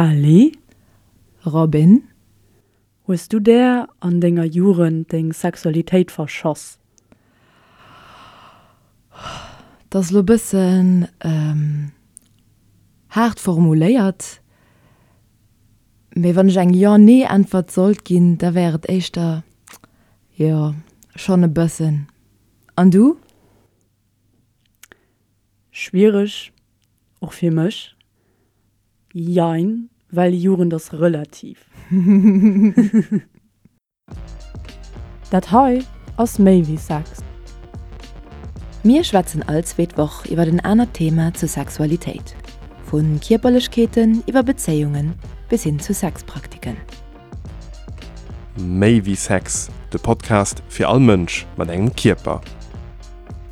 Kelly? Robin? Hues du där an denger Jugend deng Sexualitéit verschoss? Dat ass elo e bëssen haart formuléiert, mee wann ech eng Jo-Nee-Äntwert sollt ginn, da wär et éischter jo, schonn e bëssen. An du? Schwiereg, och fir mech. Jein, well Jugend ass relativ. Dat hei ass méi wéi Sex. Mir schwätzen all zweet Woch iwwer en anert Thema zur Sexualitéit, vu Kierperlechkeeten iwwer Bezéiungen bis hin zu Sexpraktiken. Méi wéi Sex, de Podcast fir all Mënsch mat engem Kierper.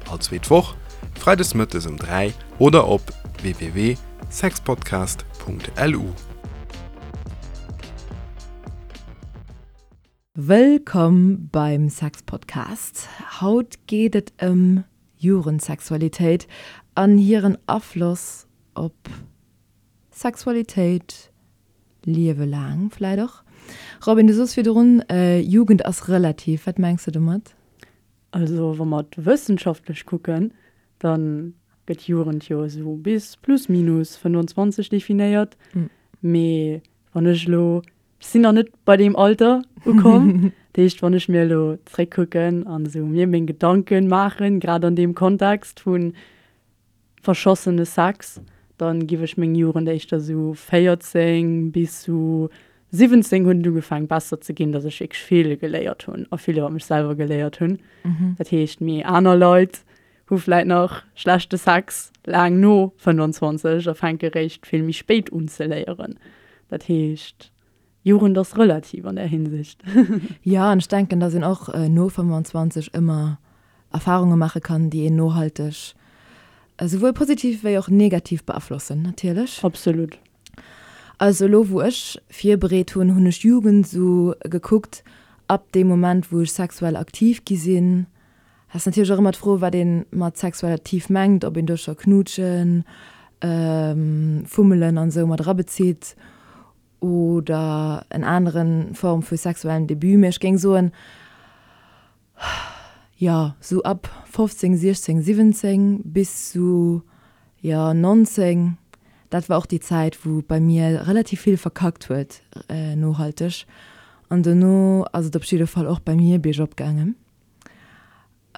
All zweet Woch, freides mëttes um 3 oder op www.sexpodcast.lu. Wëllkomm beim Sexpodcast. Haut geet et ëm Jugendsexualitéit an hiren Afloss op Sexualitéit Liewe laang vläit och. Robin, du soos virdrun, Jugend ass relativ. Wat mengs de domat? Also wa mer et wëssenschaftlech kucken, da gëtt Jugend jo esou bis plus minus 25 definéiert. Mee wann ech elo, ech sinn nach net bei deem Alter ukomm, dat heescht wann ech mir elo zréckkucken an esou mir meng Gedanken maachen, grad an deem Kontext vun verschossene Sex, dann giff ech meng Jugend éischter sou 14 bis sou 17 hunn et ugefaang besser ze ginn, dass ech wierklech vill geléiert hunn a vill iwwer mech selwer geléiert hunn. Dat heescht mee aner Leit hu vläit nach schlechte Sex laang no 25 a fänke réischt vill méi spéit un ze léieren. Dat heescht Jugend ass relativ an där Hinsicht. Jo, an ech denken, dass een och no 25 ëmmer Erfarunge maache kann, déi een nohalteg esouwuel positiv wéi och negativ beaflossen, natierlech. Absolut. Also elo wou ech virbereet hunn, hunn ech Jugend esou gekuckt ab deem Moment wou ech sexuell aktiv gi sinn. Ass natierlech och ëmmer d'Fro wat ee mat sexuell aktiv mengt, ob een do scho Knuutschen, Fummelen an esou mat erabezitt oder en aneren Form vu sexuellem Debut, mee ech géing soen, jo, sou ab 15, 16, 17 bis sou, jo, 19, dat war och déi Zäit, wou bei mir relativ vill verkackt huet, nohalteg. An dono ass et op jidde Fall och bei mir biergop gaangen.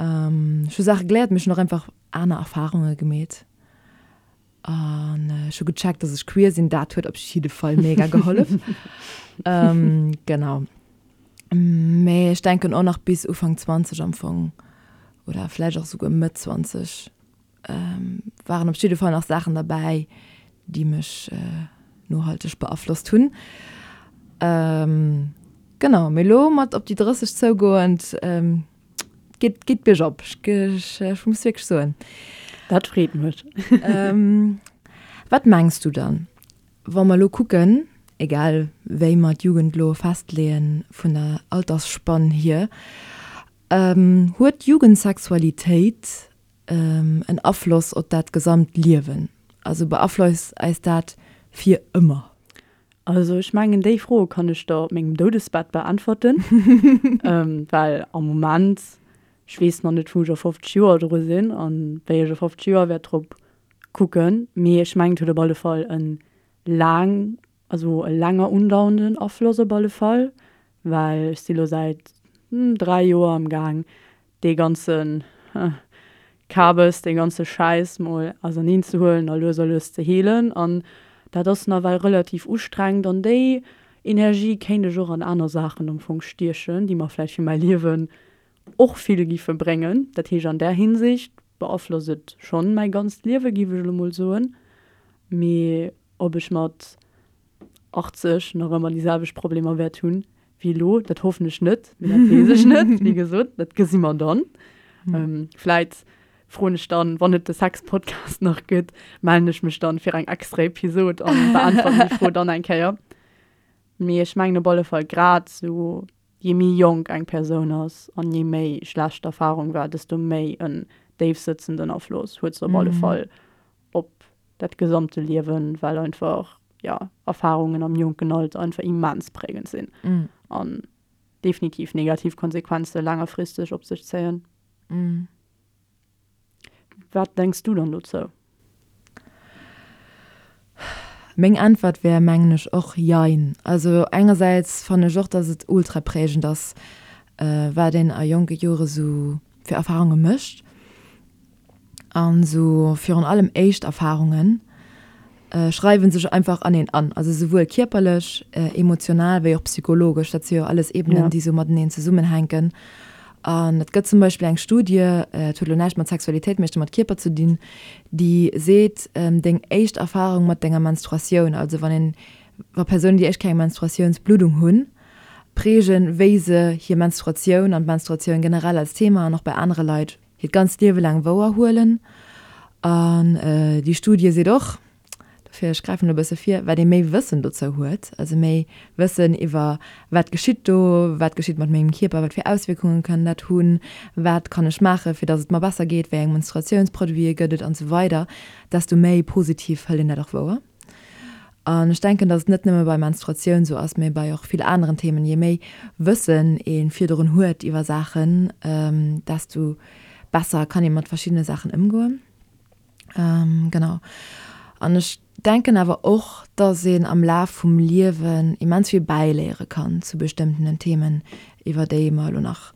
Ech hu Saache geléiert, mee ech hunn och einfach aner Erfarunge gemeet. An ech hu gecheckt, dass ech queer sinn. Dat huet op jidde Fall mega gehollef. Genau. Mee ech denken och nach bis Ufank 20 am Fong oder vläicht och souguer Mëtt 20 waren op jidde Fall nach Saachen derbäi, déi mech nohalteg beaflosst hunn. Genau, mee elo mat op déi 30 zougoend, Geet, geet biergop, ech, ech muss wierklech soen. Dat freet mech. Wat mengs du dann, wa mer elo kucken, egal wéi mer d'Jugend elo festleeën vun der Altersspann hier, huet d'Jugendsexualitéit en Afloss op dat gesamt Liewen? Also beaflosst eis dat fir ëmmer? Also ech mengen déi Fro kann ech der op mengem Doudesbett beäntwerten, well am Moment, ech weess nach net wou ech a 50 Joer dru sinn an wéi ech a 50 Joer wäert drop kucken, mee ech mengen et huet op alle Fall e laang, also e länger undauernden Afloss op alle Fall, well ech si lo säit 3 Joer am Gaang dee ganze Kabes, dee ganze Schäiss mol auserneen ze huelen a lues a lues ze heelen. An dat ass nawell relativ ustrengend an déi Energie kéint ech och an aner Saachen am Fong stiechen, déi mer vläicht fir mäi Liewen och vill giffe bréngen. Dat heescht, an där Hinsicht beaflosst et schonn mäi ganzt Liewe, giff ech elo mol soen. Mee ob ech mat 80 nach ëmmer déi selwecht Problemer wäert hunn wéi elo, dat hoffen ech net, mee dat weess ech net, wéi gesot, dat gesi mer dann. Vläit froen ech dann, wann et de Sex-Podcast nach gëtt, mellen ech mech dann fir eng extra Episod an beäntweren déi Fro dann eng Kéier. Mee ech mengen op alle Fall grad esou, je méi jonk eng Persoun ass an je méi schlecht d'Erfarung war, desto méi en déifsëtzenden Afloss huet se op alle Fall op dat gesamte Liewen, well einfach. jo, Erfarungen am jonken Alter einfach immens prägend sinn an definitiv negativ Konsequenze laangerfristeg op sech zéien. Wat denks du dann dozou? Meng Äntwert wär, mengen ech, och Jein. Also engersäits fannen ech och, dass et ultra prägend ass, wat een a jonke Jore sou fir Erfarunge mécht. An sou virun allem éischt Erfarungen schreiwen sech einfach an een an. Also souwuel kierperlech, emotional wéi och psychologesch. Dat si jo alles Ebenen, déi sou mateneen zesummenhänken. An et gëtt zum Beispill eng Studie, et huet elo näischt mat Sexualitéit, mee mat Kierper ze dinn, déi seet, deng éischt Erfarung mat denger Menstruatioun, also wann een, wa Persounen déi éischt Kéier eng Menstruatiounsbluddung hunn, prägen, wéi se hir Menstruatioun an d'Menstruatioun generell als Thema an och bei anere Leit hiert ganzt Liewe laang wouer huelen. An déi Studie seet och, dofir ech gräifen elo e bësse vir, wat ee méi Wëssen dozou huet, also méi Wëssen iwwer wat geschitt do, wat geschitt mat mengem Kierper, wat fir Auswierkunge kann dat hunn, wat kann ech maachen, fir datt et mer besser geet, wéi eng Menstruatiounsproduite gëtt et an esou weider, desto méi positiv hëlt een dat och wouer. An ech denken, dass et net nëmme bei Menstruatioun esou ass, mee bei och vill aneren Themen, je méi Wëssen ee virdrun huet iwwer Saachen, desto besser kann ee mat verschiddene Saachen ëmgoen. Genau. An ech denken awer och, dass een am Laf vum Liewen immens vill bäiléiere kann zu bestëmmtenen Themen, iwwer déi mer elo nach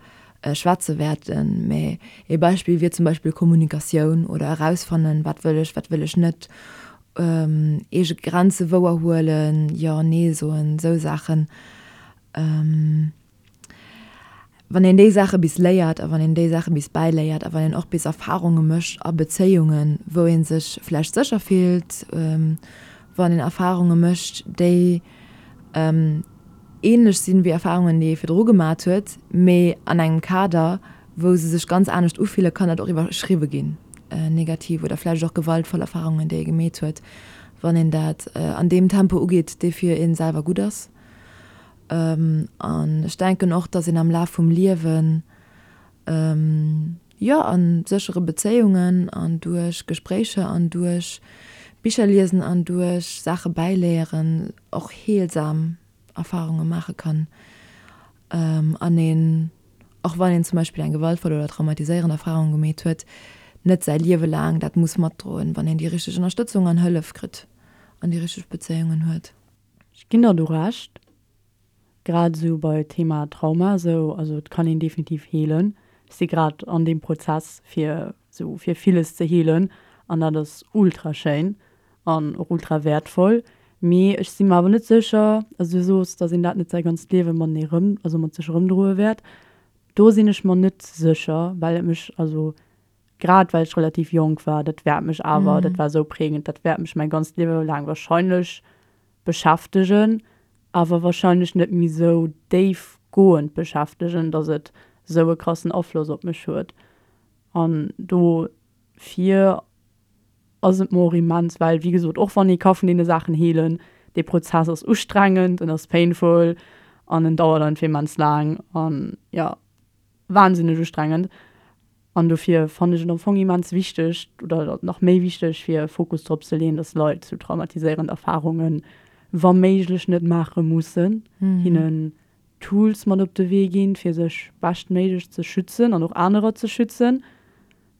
schwätze wäerten. Mee ee Beispill wier zum Beispill Kommunikatioun oder erausfannen, wat wëll ech, wat wëll ech net, eege Grenze wouer huelen, Jo, Nee soen, esou Saachen. Wann een déi Saache bis léiert a wann een déi Saache bis bäiléiert a wann een och bis Erfarunge mécht a Bezéiungen, wou ee sech vläicht sécher fillt, wann een Erfarunge mécht, déi änlech sinn wéi Erfarungen, déi ee virdru gemat huet, mee an engem Kader, wou se sech ganz anescht ufillen, kann dat och iwwerschriwwe ginn, negativ oder vläicht och gewaltvoll Erfarungen, déi ee gemeet huet, wann een dat an deem Tempo ugeet, dee fir ee selwer gutt ass. An ech denken och, dass een am Laf vum Liewen, jo, a séchere Bezéiungen an duerch Gespréicher an duerch Bicher liesen an duerch Saache bäiléieren och heelsam Erfarunge maache kann an een, och wann een zum Beispill eng gewaltvoll oder traumatiséierend Erfarung gemeet huet, net säi Liewe laang dat muss matdroen, wann een déi richteg Ënnerstëtzung an Hëllef kritt an déi richteg Bezéiungen huet. Ech ginn der do Recht, grad esou bei Thema Trauma esou, also et kann een definitiv heelen. Ech si grad an deem Prozess fir esou fir villes ze heelen an dat ass ultra schéin an och ultra wäertvoll. Mee ech si mer awer net sécher, also du soos, datt een dat net säi ganzt Liewe matenee rëm, also mat sech erëmdroe wäert. Do sinn ech mer net sécher, well et mech, also grad well ech relativ jonk war, dat wäert mech awer, dat war esou prägend, dat wäert mech mäi ganzt Liewe laang wahrscheinlech beschäftegen, awer wahrscheinlech net méi esou déifgoend beschäftegen, datt et esou e krassen Afloss op mech huet. An dofir ass et mer och immens, well wéi gesot, och wann ee ka vun deene Saachen heelen, dee Prozess ass ustrengend, en ass painful an en dauert einfach immens laang an jo, wahnsinneg ustrengend. An dofir fannen ech et am Fong immens wichteg oder nach méi wichteg fir Fokus drop ze leeën, dass Leit sou traumatiséierend Erfarungen wa méiglech net maache mussen, hinnen Tools mat op de Wee ginn, fir sech beschtméiglech ze schützen an och anerer ze schützen,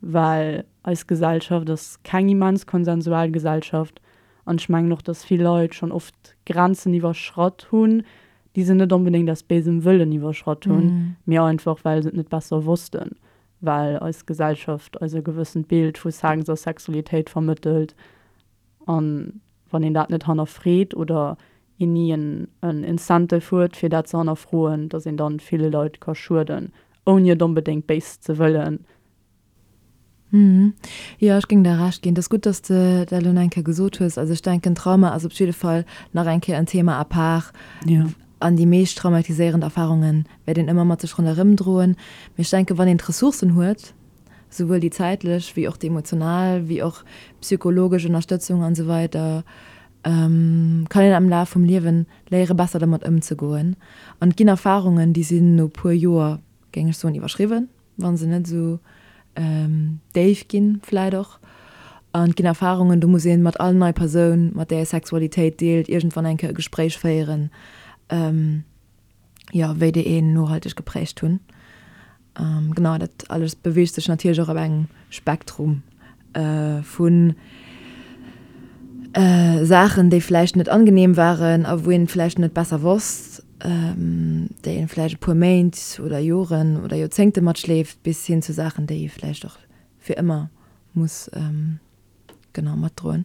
well eis Gesellschaft ass keng immens konsensual Gesellschaft an ech mengen och, dass vill Leit schonn oft Grenzen iwwerschratt hunn, déi se net onbedéngt aus béisem Wëllen iwwerschratt hunn, mee einfach well se et net besser wossten, well eis Gesellschaft eis e gewëssent Bild vu Sex a Sexualitéit vermëttelt. An wann een dat net hannerfreet oder een ni en Incentive huet fir dat ze hannerfroen, datt een dann ville Leit ka schueden, ouni et onbedéngt béis ze wëllen. Jo, ech géing der Recht ginn. Et ass gutt, dass de dat elo nach eng Kéier gesot hues. Also ech denken, Trauma ass op jidde Fall nach eng Kéier en Thema à part. An déi meescht traumatiséierend Erfarunge wäert een ëmmer mat sech ronderëm droen. Mee ech denken, wann een d'Ressourcen huet, souwuel déi zäitlech wéi och déi emotional, wéi och psychologesch Ënnerstëtzung an esou weider, kann een am Laf vum Liewen léiere besser dermat ëmzegoen. An et ginn Erfarungen, déi sinn no puer Joer, géing ech soen, iwwerschriwwen. Wa se net esou déif ginn, vläit och. An et ginn Erfarungen, do muss ee mat all nei Persoun, mat där ee Sexualitéit deelt, iergendwann eng Kéier e Gespréich féieren, jo, wéi déi een nohalteg geprägt hunn. Genau, dat alles beweegt sech natierlech och op engem Spektrum vu Saachen, déi vläicht net angenehm waren a wou een vläicht net besser wosst, déi een vläicht e puer Méint oder Joren oder Joerzéngte matschleeft, bis hin zu Saachen, déi ee vläicht och fir ëmmer muss genau matdroen.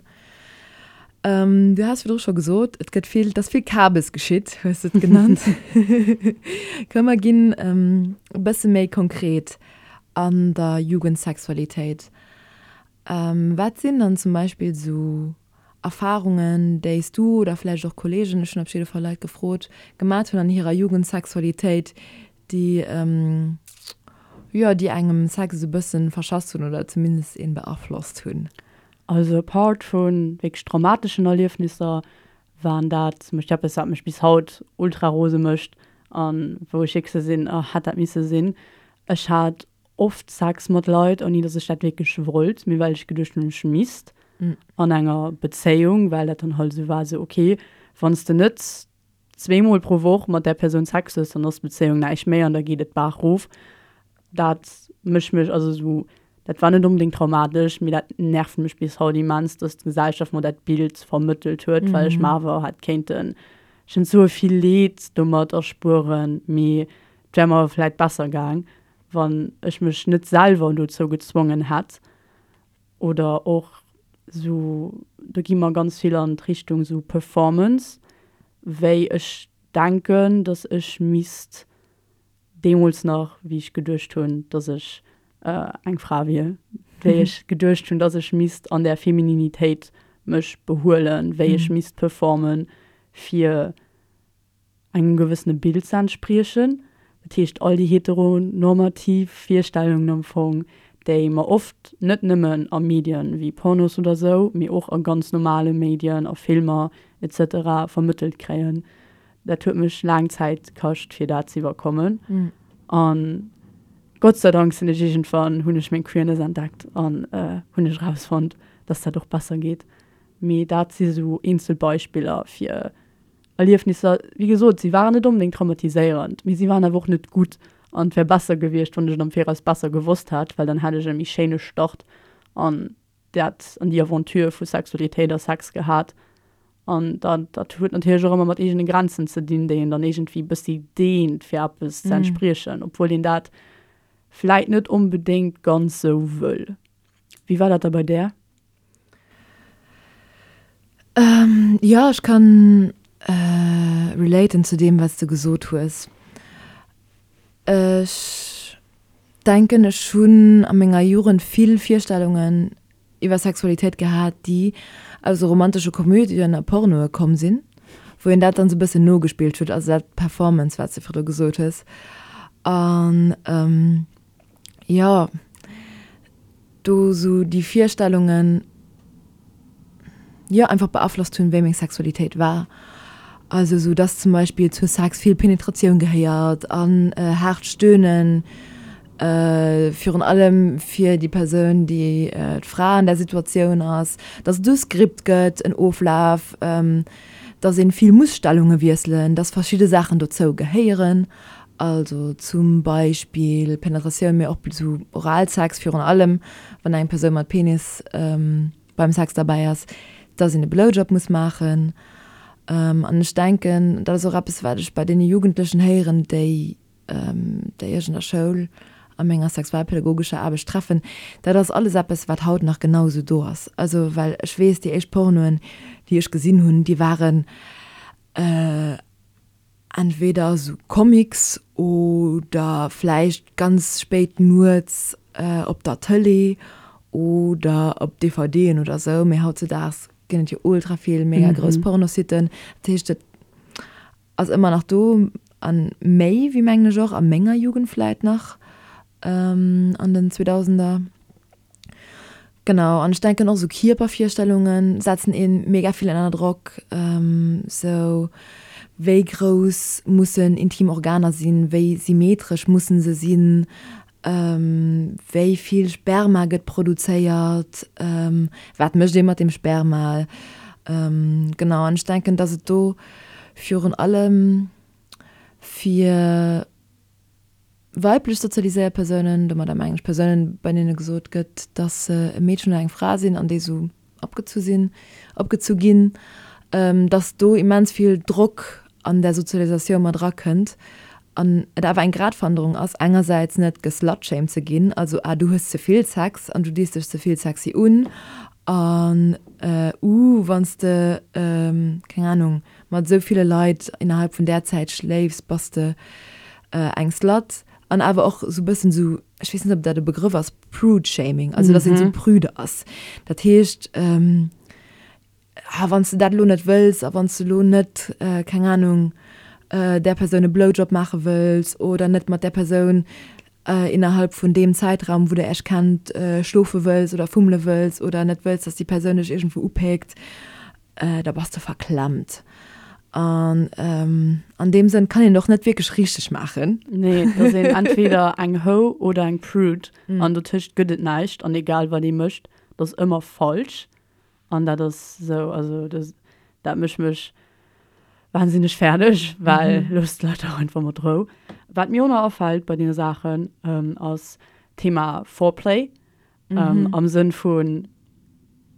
Du has virdru scho gesot, et gëtt vill, et ass vill Kabes geschitt, hues de et genannt. Komm mer ginn e bësse méi konkret an der Jugendsexualitéit. Wat sinn dann zum Beispill esou Erfarungen, déi s du oder vläicht och Kolleegen, ech hunn op jidde Fall Leit gefrot, gemat hunn an hirer Jugendsexualitéit, déi, jo, déi engem Sex esou e bëssen verschass hunn oder zumindest een beaflosst hunn? Also apart vu wierklech traumateschen Erliefnisser waren dat zum Beispill eppes, wat mech bis haut ultra rose mécht a wou ech wierklech esou sinn, oh hätt dat misse sinn. Ech hat oft Sex mat Leit, ouni dass ech dat wierklech wollt, mee well ech geduecht hunn, ech misst an enger Bezéiung, well dat dann halt esou war, esou okay, wann s de net zweemol pro Woch mat där Persoun Sex hues, dann ass d'Bezéiung näischt méi an da geet et d'Baach rof. Dat mécht mech, also esou, dat war net onbedéngt traumatesch, mee dat nervt mech bis haut immens, dass d'Gesellschaft mer dat Bild vermëttelt huet, well ech mer awer hätt kéinten schonn esou vill Leed domat erspueren, mee et wär mer vläit besser gaang, wann ech mech net selwer dozou gezwongen hätt. Oder och sou, do gi mer ganz vill an d'Richtung sou Performance, wéi ech denken, datt ech misst deemools nach, wéi ech geduecht hunn, datt ech eng Fra wier, wéi ech geduecht hunn, datt ech misst an där Femininitéit mech behuelen, wéi ech misst performen, fir engem gewëssene Bild ze entspriechen. Dat heescht, all déi heteronormativ Virstellungen am Fong, déi mer oft net nëmmen a Medien wéi Pornos oder sou, mee och a ganz normale Medien, a Filmer et cetera vermëttelt kréien. Dat huet mech laang Zäit kascht, fir dat ze iwwerkommen. An Gott sei Dank sinn ech iergendwann, hunn ech meng Queerness entdeckt an hunn ech erausfonnt, dass dat och besser geet. Mee dat si sou eenzel Beispiller fir Erliefnisser, wéi gesot, si waren net onbedéngt traumatiséierend, mee si waren awer och net gutt an et wär besser gewiescht, wann ech et am Viraus besser gewosst hätt, well dann hätt ech e méi schéine Start an dat, an déi Aventure vu Sexualitéit a Sex gehat. An dat, dat huet natierlech och ëmmer mat eegene Grenzen ze dinn, déi een dann iergendwéi e bëssi deent, fir eppes ze entspriechen, obwuel een dat vläit net onbedéngt ganz sou wëll. Wéi war dat da bei där? Jo, ech kann relaten zu deem, wat s de gesot hues. Ech denken, ech hunn a menger Jugend vill Virstellungen iwwer Sexualitéit gehat, déi aus esou romantesche Komödien a Pornoe komm sinn, wou een dat dann esou e bëssen nogespillt huet, also dat Performance, wat s de virdru gesot hues. An jo, do sou déi Virstellungen, jo, einfach beaflosst hunn, wéi meng Sexualitéit war. Also sou dass zum Beispill zu Sex vill Penetratioun gehéiert an haart Stöhnen, virun allem fir déi Persoun, déi d'Fra an där Situatioun ass, dass et e Skript gëtt, en Oflaf, dass een vill muss Stellunge wiesselen, dass verschidde Saachen dozou gehéieren. Also zum Beispill Penetratioun, mee och sou Oralsex, virun allem wann eng Persoun mat Penis beim Sex derbäi ass, dass een e Blowjob muss maachen. An ech denken, dat ass och eppes, wat ech bei deene Jugendlechen héieren, déi déi ech an der Schoul a menger sexualpädagogescher Aarbecht treffen, dat ass alles eppes, wat haut nach genau esou do ass. Also well ech weess, déi éischt Pornoen, déi ech gesinn hunn, déi waren entweder esou Comics oder vläicht ganz spéit nuets op der Tëlee oder op DVDen oder esou, mee hautzedaags ginn et jo ultra vill mega grouss Pornositen. Dat heescht, et ass ëmmer nach do a méi wéi mengen ech och a menger Jugend vläit nach an den Zweedausender. Genau, an ech denken och esou Kierpervirstellunge setzen ee mega vill ënner Drock. Sou wéi grouss mussen intim Organer sinn, wéi symmetresch mussen se sinn? Wéi vill Sperma gëtt produzéiert? Wat mécht ee mat deem Sperma? Genau, an ech denken, datt et do virun allem fir weiblech sozialiséiert Persounen, domadder mengen ech Persounen, bei deene gesot gëtt, datt se e Meedchen oder eng Fra sinn an déi esou opgezu sinn, opgezu ginn, dass do immens vill Drock an där Sozialisatioun mat erakënnt an et awer eng Gratwanderung ass, engersäits net geslutshamed ze ginn, also ah du hues ze vill Sex an du dees dech ze vill sexy un an uh wann s de, keng Ahnung, mat esou ville Leit innerhalb vun där Zäit schléifs, bass de eng Slut an awer och esou e bëssen esou, ech weess net ob dat e Begrëff ass, Prude-Shaming, also dass een esou prüde ass. Dat heescht, ah wann s de dat elo net wëlls a wann s de elo net, keng Anung, där Persoun e Blowjob maache wëlls oder net mat där Persoun innerhalb vun deem Zäitraum, wou der Iech kennt, schlofe wëlls oder fummele wëlls oder net wëlls, dass déi Persoun dech iergendwou upéckt, da bass de verklemmt. An an deem Sënn kann een et och net wierklech richteg maachen. Nee, et ass een entweder eng Hoe oder eng Prude an dotëscht gëtt et näischt an egal wat ee mécht, et ass ëmmer falsch. An dat ass esou, also dat mécht mech wahnsinneg fäerdeg, well loosst d'Leit dach einfach mat Rou. Wat mir och nach afält bei deene Saachen, ass d'Thema Foreplay. Am Sënn vu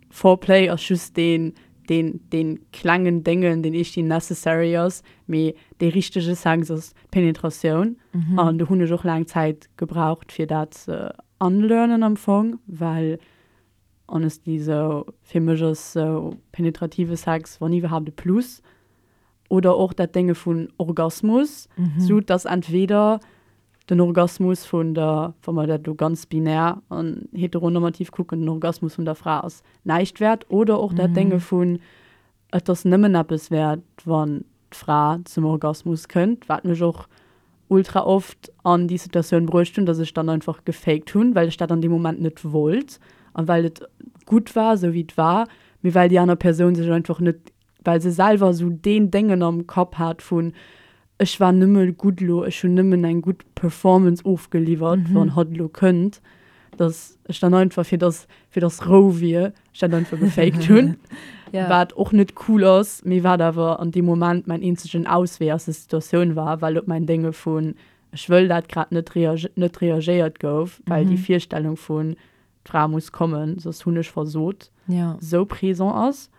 Foreplay ass just deen, deen, deen klengen Déngen, deen eescht necessary ass, mee dee richtege Sex ass d'Penetratioun. An do hunn ech och laang Zäit gebraucht, fir dat ze unlearnen am Fong, well honestly sou fir mech ass sou penetrative Sex wann iwwerhaapt e Plus. Oder och dat Dénge vun Orgasmus, sou dass entweder den Orgasmus vun der, wa mer dat elo ganz binär an heteronormativ kucken, den Orgasmus vun der Fra ass näischt wäert oder och dat Dénge vun et ass nëmmen eppes wäert, wann d'Fra zum Orgasmus kënnt, wat mech och ultra oft an déi Situatioun bruecht hunn, dass ech dann einfach gefaked hunn, well ech dat an deem Moment net wollt a well et gutt war, esou wéi et war, mee well déi aner Persoun sech einfach net well se selwer esou deen Déngen am Kapp hat vun, ech war nëmme gutt elo, ech hunn nëmmen eng gutt Performance ofgeliwwert, wann hatt elo kënnt, dass ech dann einfach, fir dass, fir dass Rou wier, ech dat einfach gefaked hunn, wat och net cool ass, mee wat awer an deem Moment mäin eenzegen Auswee aus der Situatioun war, well op mäin Dénge vun, ech wëll dat grad net, net reagéiert gouf, well déi Virstellung vun, d'Fra muss kommen, soss hunn ech versot, esou présent ass.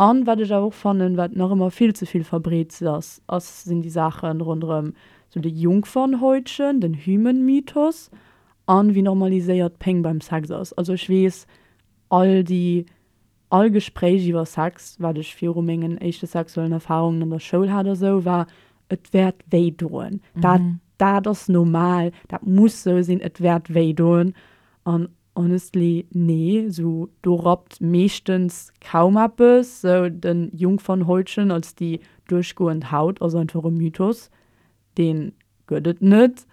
An wat ech awer och fannen, wat nach ëmmer vill ze vill verbreet ass, ass, sinn déi Saachen ronderëm sou de Jungfernhäutchen, den Hymen-Mythos an wéi normaliséiert Péng beim Sex ass. Also ech weess, all déi, all Gespréich iwwer Sex, wat ech viru mengen éischte sexuellen Erfahrungen an der Schoul hat a sou, war, et wäert wéi doen. Dat, dat ass normal, dat muss sou sinn, et wäert wéi doen. An Honestly, nee, sou do rappt meeschtens kaum eppes. Sou den Jungfernhäutchen als déi duerchgoend Haut ass einfach e Mythos, deen gëtt et net.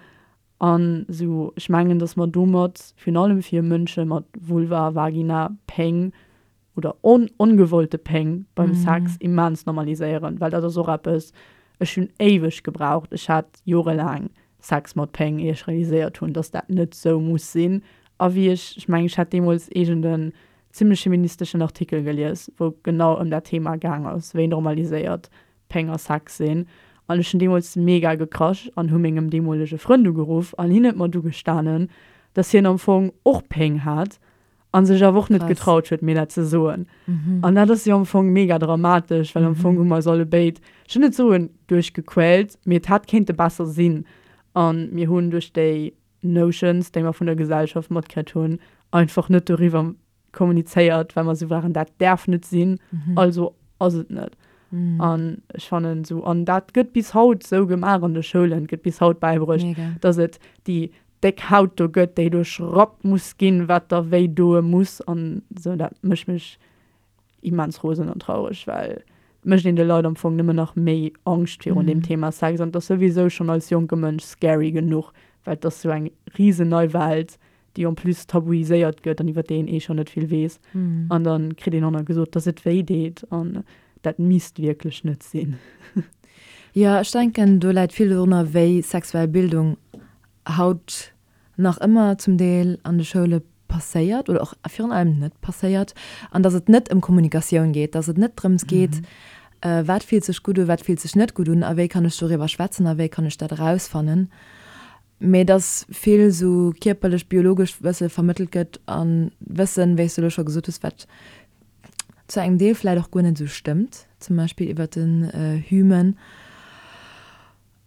An sou ech mengen dass mer domat, virun allem fir Mënsche mat Vulva, Vagina, Péng oder ongewollte Péng beim Sex immens normaliséieren, well dat ass och eppes, ech hunn éiweg gebraucht, ech hat jorelaang Sex mat Péng, ier ech realiséiert hunn, dass dat net sou muss sinn. A wéi ech, ech mengen, ech hat deemools iergend en zimmlech feministeschen Artikel gelies, wou genau ëm dat Thema gaang ass, wéi normaliséiert Péng a Sex sinn. An ech hunn deemools mega gekrasch an hu mengem deemolege Frënd ugeruff an hien huet mer du gestanen, dass hien am Fong och Péng hat an sech awer och net getraut huet mir dat ze soen. An dat ass jo am Fong mega dramatesch, well am Fong hu mer eis allebéid, ech wëll net soen duerchgequält, mee et hätt kéinte besser sinn. An mir hunn duerch déi Notions, déi mer vun der Gesellschaft matkritt hunn, einfach net doriwwer kommunizéiert, well mer esou waren, dat däerf net sinn, also ass et net. An ech fannen esou, an dat gëtt bis haut esou gemaach an de Schoulen, gëtt bis haut bäibruecht, dass et déi déck Haut do gëtt, déi duerchrappt muss ginn, wat da wéi doe muss an esou. Dat mécht mech immens rosen an traureg, well et mécht een de Leit am Fong nëmmen nach méi Angscht virun deem Thema Sex an et ass souwisou schonn als jonke Mënsch scary genuch, well et ass sou eng risen nei Welt, déi en plus tabuiséiert gëtt an iwwer déi een eh schonn net vill weess an da kritt een och nach gesot, dass et wéi deet an dat misst wierklech net sinn. Jo, ech denken do läit vill dorunner, wéi sexuell Bildung haut. nach ëmmer zum Deel an de Schoule passéiert oder och virun allem net passéiert an dass et net ëm Kommunikatioun geet, dass et net drëms geet, wat fillt sech gutt un, wat fillt sech net gutt un a wéi kann ech doriwwer schwätzen a wéi kann ech dat erausfannen, mee dass vill esou kierperlech, biologescht Wësse vermëttelt gëtt a Wëssen, wéi s de elo scho gesot hues, wat zu engem Deel vläicht och guer net esou stëmmt, zum Beispill iwwert den Hymen.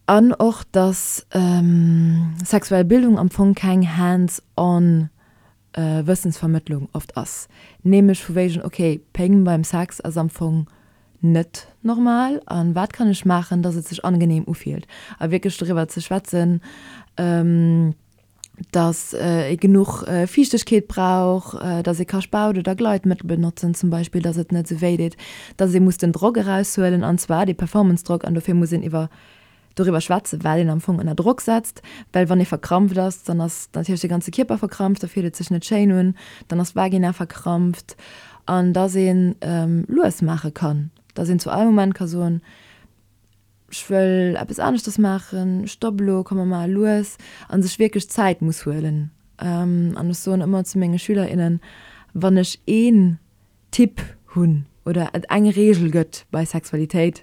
An och, dass sexuell Bildung am Fong keng hands-on Wëssensvermëttlung oft ass. Nämlech vu wéigen, ok, Péng beim Sex ass am Fong net normal a wat kann ech maachen, dass et sech angenehm ufillt? A wierklech doriwwer ze schwätzen, dass ee genuch Fiichtegkeet brauch, dass ee ka Spaut oder Gleitmëttel benotzen zum Beispill, dass et net esou wéi deet, dass ee muss den Drock eraushuelen, an zwar dee Performance-Drock, an dofir muss een iwwer doriwwer schwätzen, well een am Fong ënner Drock setzt, well wann ee verkrampft ass, dann ass natierlech de ganze Kierper verkrampft, da fillt et sech net schéin un, dann ass d'Vagina verkrampft, an dass ee lues maache kann, dass een zu all Moment ka soen, ech wëll eppes aneschters maachen, stopp elo, komm mer maache lues, a sech wierklech Zäit muss huelen. An ech soen ëmmer zu menge Schüler, innen, wann ech een Tipp hunn oder et eng Reegel gëtt bei Sexualitéit,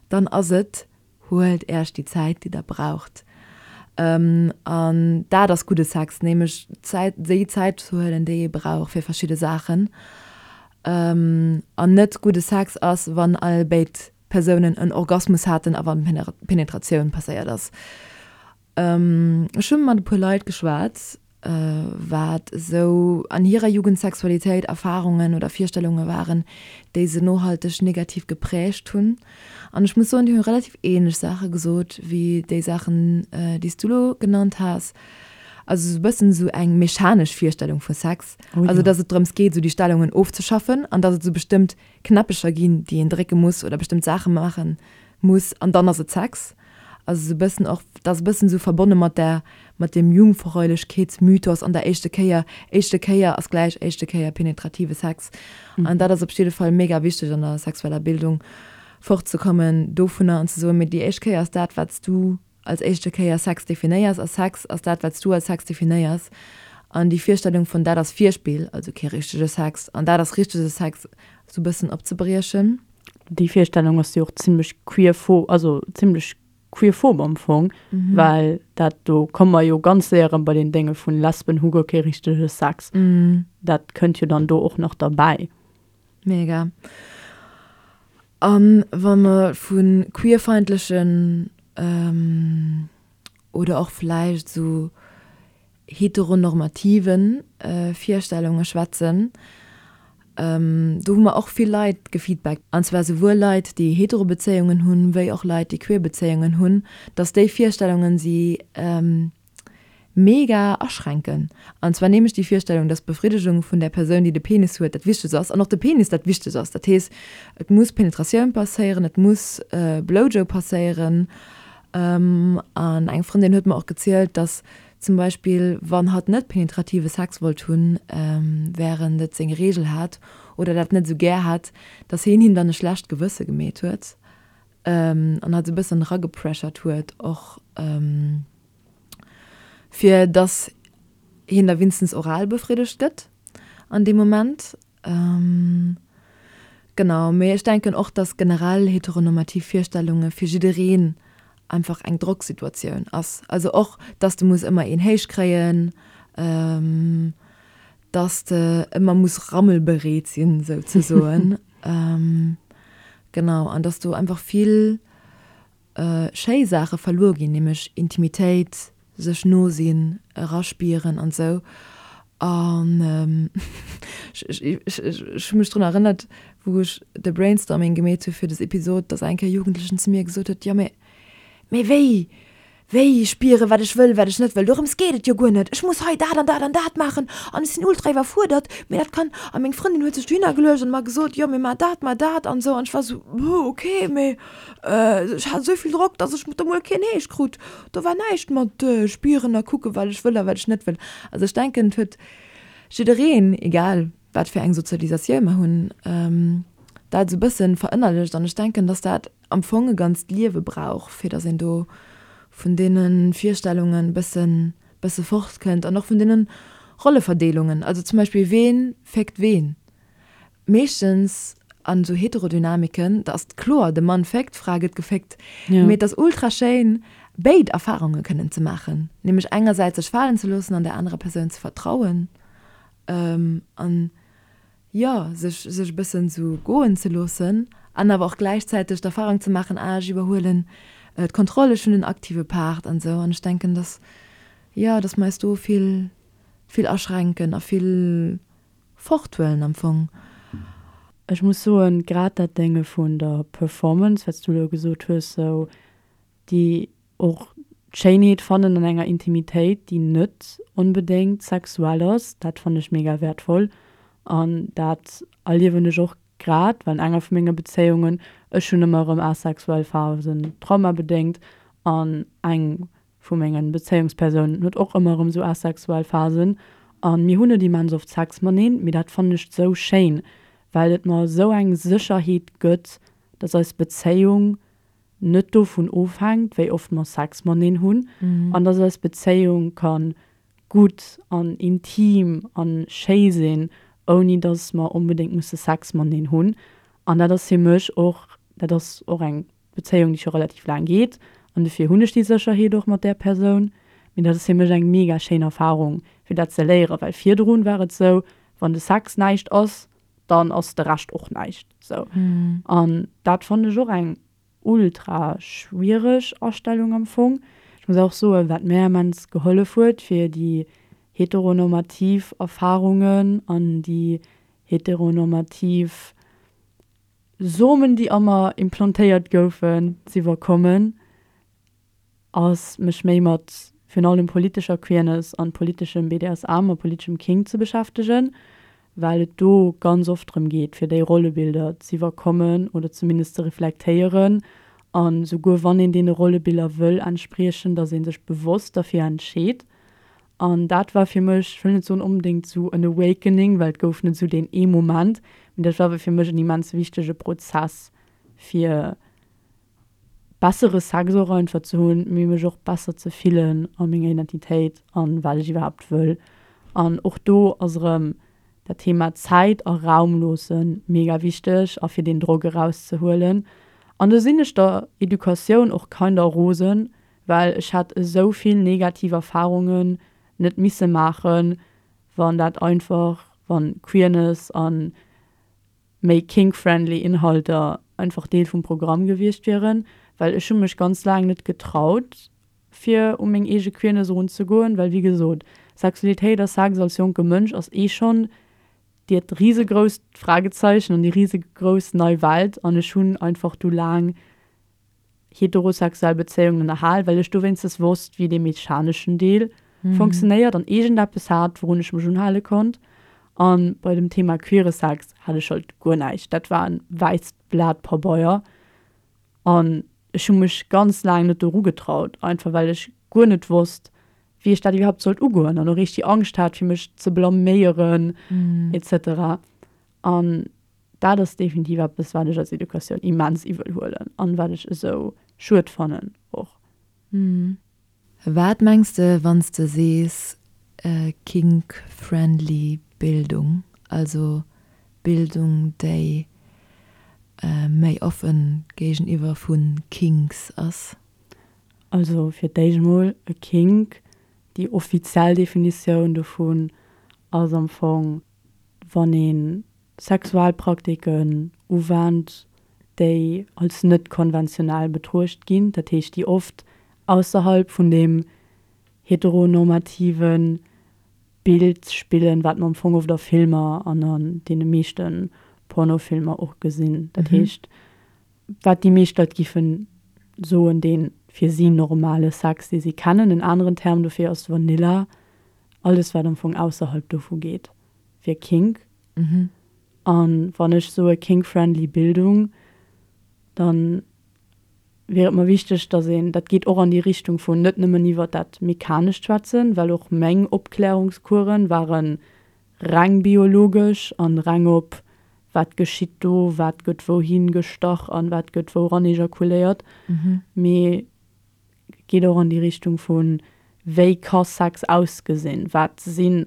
dann ass et, huelt Äerch déi Zäit, déi der braucht. An dat ass gudde Sex, nämlech Zäit, déi Zäit ze huelen, déi ee brauch fir verschidde Saachen. An net gudde Sex ass, wann all béid Persounen en Orgasmus haten a wann Penetratioun passéiert ass. Ech hu mat e puer Leit geschwat, wat esou an hirer Jugendsexualitéit Erfarungen oder Virstellunge waren, déi se nohalteg negativ geprägt hunn. An ech muss soen, déi hu relativ ähnlech Saache gesot wéi déi Saachen, déi s du elo genannt has. Also esou e bëssen esou eng mechanesch Virstellung vu Sex. Also datt et drëms geet, esou déi Stellungen ofzeschaffen an datt et esou bestëmmt Knäppecher ginn, déi een drécke muss oder bestëmmt Saache maache muss an dann ass et Sex. Also esou e bëssen och, dat ass e bëssen esou verbonne mat der, mat dem Jungfräulechkeetsmythos an der éischte Kéier, éischte Kéier ass gläich éischte Kéier penetrative Sex. An dat ass op jidde Fall mega wichteg an der sexueller Bildung, fortzekommen dovunner an ze soen, mee déi éischt Kéier ass dat, wat s du als éischte Kéier Sex definéiers a Sex ass dat, wat s du als Sex definéiers. An déi Virstellung vun dat ass Virspill, also kee richtege Sex, an dat ass richtege Sex, esou e bëssen opzebriechen. Déi Virstellung ass jo och zimmlech queerphob, also zimmlech queerphob am Fong, well dat, do komme mer jo ganz séier erëm bei deen Dénge vun Lesben hu guer kee richtege Sex. Dat kënnt jo dann do och nach derbäi. Mega. A wa mer vu queerfeindlechen oder och vläicht esou heteronormative Virstellunge schwätzen, do hu mer och vill Leit gefeedbackt, an zwar souwuel Leit, déi hetero Bezéiungen hunn, wéi och Leit, déi queer Bezéiungen hunn, datt déi Virstellungen si mega aschränken. An zwar nämlech déi Virstellung, dass d'Befriddegung vun där Persoun, déi de Penis huet, dat Wichtegst ass an och de Penis dat Wichtegst ass. Dat heescht, et muss Penetratioun passéieren, et muss Blowjob passéieren. An eng Frëndin huet mer och gezielt, dass zum Beispill, wann hatt net penetrative Sex wollt hunn, wärend et seng Reegel hat oder dat net esou gär hat, dass hien him dann e schlecht Gewësse gemeet huet an hatt esou e bëssen eragepressurt huet och. Fir dass hien da winstens oral befriddegt gëtt an deem Moment. Genau, mee ech denken och, dass generell heteronormativ Virstellunge fir jiddereen einfach eng Drocksituatioun ass. Also och, dass de muss ëmmer een héich kréien, dass de ëmmer muss rammelbereet sinn, souzesoen. Genau, an dass do einfach vill schéi Saache verluer ginn, nämlech Intimitéit, sech no sinn, eraspieren an esou. An ech hu mech drun erënnert, wou ech de Brainstorming gemeet hu fir des Episod, dass eng Kéier e Jugendlechen zu mir gesot huet, jo mee, mee wéi, Wéi spieren, wat ech wëll, wat ech net wëll, dorëms geet et jo guer net. Ech muss hei dat an dat an dat maachen an ech sinn ultra iwwerfuerdert, mee dat kann. A meng Frëndin huet sech dohinner geluecht an mer gesot, jo, mee mar dat, mar dat an esou. An ech war esou, Huh, ok, mee ech hat esou vill Drock, dass ech do mol keen Heescht krut. Do war näischt mat spieren a kucken, wat ech wëll a wat ech net wëll. Also ech denken, et huet jiddereen, egal wat fir eng Sozialisatioun mer hunn, dat esou e bëssen verënnerlecht an ech denken, dass dat am Fong e ganzt Liewe brauch, fir dass een do vun deene Virstellungen e bësse. bësse fortkënnt an och vun deene Rolleverdeelungen. Also zum Beispill, ween féckt ween? Meeschtens an esou Heterodynamiken, da ass et kloer, de Mann féckt, d'Fra gëtt geféckt. Mee et ass ultra schéin, béid Erfarunge kënnen ze maachen, nämlech engersäits sech falen ze loossen an där anerer Persoun ze vertrauen an, jo, sech sech e bëssen esou goen ze loossen an awer och gläichzäiteg d'Erfarung ze maachen, ah, ech iwwerhuelen d'Kontroll, ech hunn den aktive Part an esou. An ech denken, dass, jo, dass mer eis do vill, vill aschränken a vill forthuelen am Fong. Ech muss soen, grad dat Dénge vun der Performance, wat s du elo gesot hues, sou déi och d'Schéinheet fannen an enger Intimitéit, déi net onbedéngt sexuell ass, dat fannen ech mega wäertvoll an dat erliewen ech och grad, well an enger vu menge Bezéiungen, ech hunn ëmmer erëm asexuell Phasen, traumabedéngt, an eng vu mengen Bezéiungspersounen huet och ëmmer erëm sou asexuell Phasen an mir hunn net immens oft Sex mateneen, mee dat fannen ech sou schéin, well et mer sou eng Sécherheet gëtt, dass eis Bezéiung net dovun ofhänkt, wéi oft mer Sex mateneen hunn an dass eis Bezéiung kann gutt an intim an schéi sinn, ouni dass mer onbedéngt musse Sex mateneen hunn. An dat ass fir mech och, dat ass och eng Bezéiung, déi scho relativ laang geet an dofir hunn ech déi Sécherheet och mat där Persoun. Mee dat ass fir mech eng mega schéin Erfarung, fir dat ze léieren, well virdrun war et sou, wann de Sex näischt ass, dann ass de Rescht och näischt sou. An dat fannen ech och eng ultra schwiereg Astellung am Fong. Ech muss och soen, wat mär immens gehollef huet, fir déi heteronormativ Erfarungen an déi heteronormativ Somen, déi a mer implantéiert goufen, z'iwwerkommen, ass mech méi mat virun allem politescher Queerness an politeschem BDSM a politeschem Kink ze beschäftegen, well et do ganz oft drëm geet, fir déi Rollebilder z'iwwerkommen oder zumindest ze reflektéieren an souguer wann een deene Rollebiller wëll entspriechen, dass ee sech bewosst derfir entscheet. An dat war fir mech, ech wëll net soen onbedéngt esou en Awakening, well et gouf net esou deen ee Moment, mee dat war awer fir mech en immens wichtege Prozess, fir bessere Sex och einfach ze hunn, mee mech och besser ze fillen a menger Identitéit an wat ech iwwerhaapt wëll. An och do ass erëm dat Thema Zäit a Raum loosse mega wichteg a fir deen Drock erauszehuelen. An do sinn ech der Educatioun och kinder rosen, well ech hätt esou vill negativ Erfahrungen net misse maachen, wann dat einfach, wann Queerness an méi kink-friendly Inhalter einfach Deel vum Programm gewiescht wieren, well ech hu mech ganz laang net getraut fir u meng eege Queerness erunzegoen, well wéi gesot, Sexualitéit a Sex als jonke Mënsch ass eh schonn diert risegrousst Fragezeichen an déi risegrouss nei Welt an ech hunn einfach du laang heterosexuell Bezéiungen ënnerhal, well ech do wéinstens wosst, wéi dee mechaneschen Deel funktionéiert an iergendeppes hat, wourun ech mech unhale konnt. A bei dem Thema queere Sex hat ech halt guer näischt. Dat war e wäisst Blat Pabeier an ech hu mech ganz laang net doru getraut, einfach well ech guer net wosst, wéi ech dat iwwerhaapt sollt ugoen an och eréischt déi Angscht hat, fir mech ze blaméieren et cetera. An Dat ass definitiv eppes, wat ech als Educatioun immens iwwel huelen an wat ech esou schued fannen och. Wat mengs de wann s de sees kink-friendly Bildung, also Bildung déi méi offen géigeniwwer vu Kinks ass? Also fir d'éischt mol, e Kink, déi offiziell Definitioun dovun ass am Fong, wann ee Sexualpraktiken uwennt, déi als net konventionell betruecht ginn, dat heescht déi oft ausserhalb vun deem heteronormative Bild spillen, wat mer am Fong oft a Filmer an an deene meeschte Pornofilmer och gesinn. Dat heescht, wat déi meescht Leit giffen soen, dee fir si normale Sex, dee si kennen. En aneren Term dofir ass Vanilla, alles wat am Fong ausserhalb dovu geet, wier Kink. An wann ech soe kink-friendly Bildung, dann wier et mer wichteg, dass een, dat geet och an déi Richtung vun net nëmmen iwwert dat Mechanescht schwätzen, well och meng Opklärungscoursen ware reng biologesch an reng op wat geschitt do, wat gëtt wouhin gestach an wat gëtt wou ran ejakuléiert, mee geet och an déi Richtung vun. Wéi ka Sex ausgesinn? Wat sinn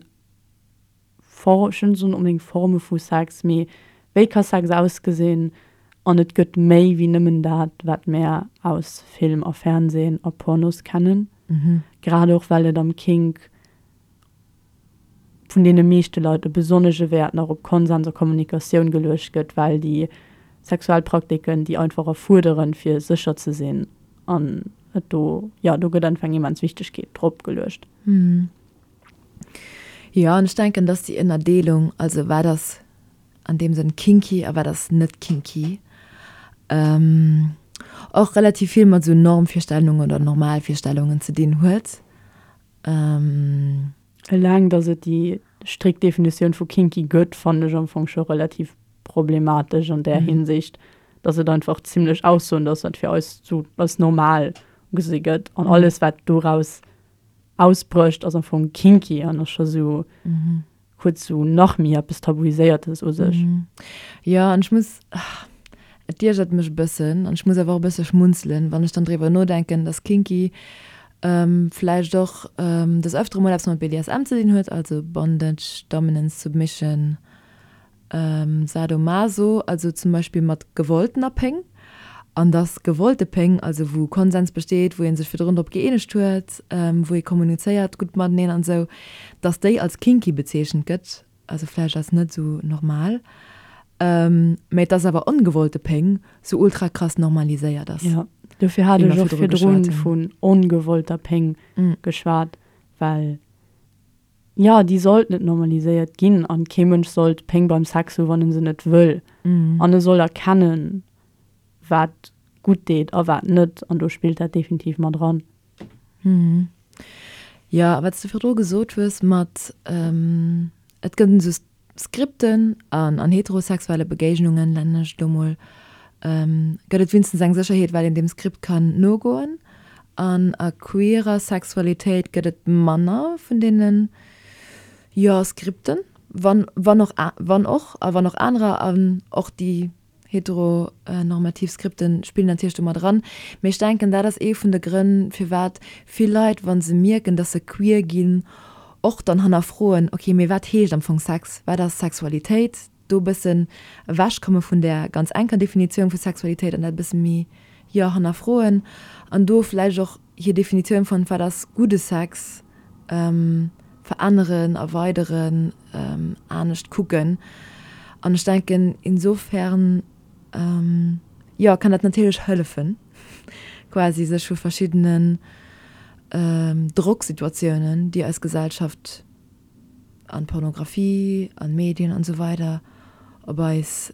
For, ech wëll net soen onbedéngt Forme vu Sex, mee wéi ka Sex ausgesinn? An et gëtt méi wéi nëmmen dat, wat mär aus Film a Fernsehen a Pornos kennen. Grad och well et am Kink vun deene meeschte Leit e besonnesche Wäert nach op Konsens a Kommunikatioun geluecht gëtt, well déi sexuell Praktiken déi einfach erfuerderen, fir sécher ze sinn an et do, jo, do gëtt einfach eng immens Wichtegkeet drop geluecht. Jo, an ech denken, dass déi Ënnerdeelung, also wat ass an deem Sënn kinky a wat ass net kinky, och relativ vill mat esou Normvirstellungen oder Normalvirstellungen ze dinn huet. Eleng, dass et déi strikt Definitioun vu kinky gëtt, fannen ech am Fong scho relativ problematesch an där Hinsicht, dass et einfach zimlech aussoend ass, wat fir eis sou als normal gesi gëtt an alles, wat doraus ausbrécht, ass am Fong kinky an ass scho sou huet sou nach méi eppes Tabuiséiertes u sech. Jo, an ech muss, et iergert mech e bëssen an ech muss awer och e bësse schmunzelen, wann ech dann driwwer nodenken, dass kinky vläicht och des Öftere mol eppes mat BDSM ze dinn huet, also Bondage, Dominance, Submission, Sadomaso, also zum Beispill mat gewolltener Péng, an dass gewollte Péng, also wou Konsens besteet, wou ee sech virdrun drop gëeenegt huet, wou ee kommunizéiert gutt mateneen an esou, dass déi als kinky bezeechent gëtt, also vläicht als net esou normal, mä dass awer ongewollte Péng sou ultra krass normaliséiert ass. Jo, dofir hat ech och virdrun vun ongewollter Péng geschwat, well Jo, déi sollt net normaliséiert ginn an kee Mënsch sollt Péng beim Sex hu wann en se net wëll. An e soll erkennen, wat gutt deet a wat net an do spillt dat definitiv mat eran. Jo, a wat s de virdru gesot hues mat et gëtt esou Skripten an an heterosexuelle Begéignungen, nennen ech et elo mol, gëtt et winstens eng Sécherheet, well een deem Skript kann nogoen. An a queerer Sexualitéit gëtt et manner vun deenen, jo, Skripten, wann, wann och, wann och, a wann och anerer, an och déi Heteronormativ Skripten spillen natierlech do mat eran. Mee ech denken, dat ass ee vun de Grënn, firwat vill Leit, wa se mierken, dass se queer ginn, och dann hannerfroen, ok, mee wat heescht am Fong Sex, wat ass Sexualitéit? Do e bëssen ewechkomme vun där ganz enker Definitioun vu Sexualitéit an dat e bësse méi, jo, hannerfroen an do vläicht och hir Definitioun vun wat ass gudde Sex veränneren, erweideren. anescht kucken. An ech denken, insofern, jo, kann dat natierlech hëllefen, quasi sech vu verschiddenen Drocksituatiounen, déi eis Gesellschaft an Pornografie, an Medien an esou weider op eis,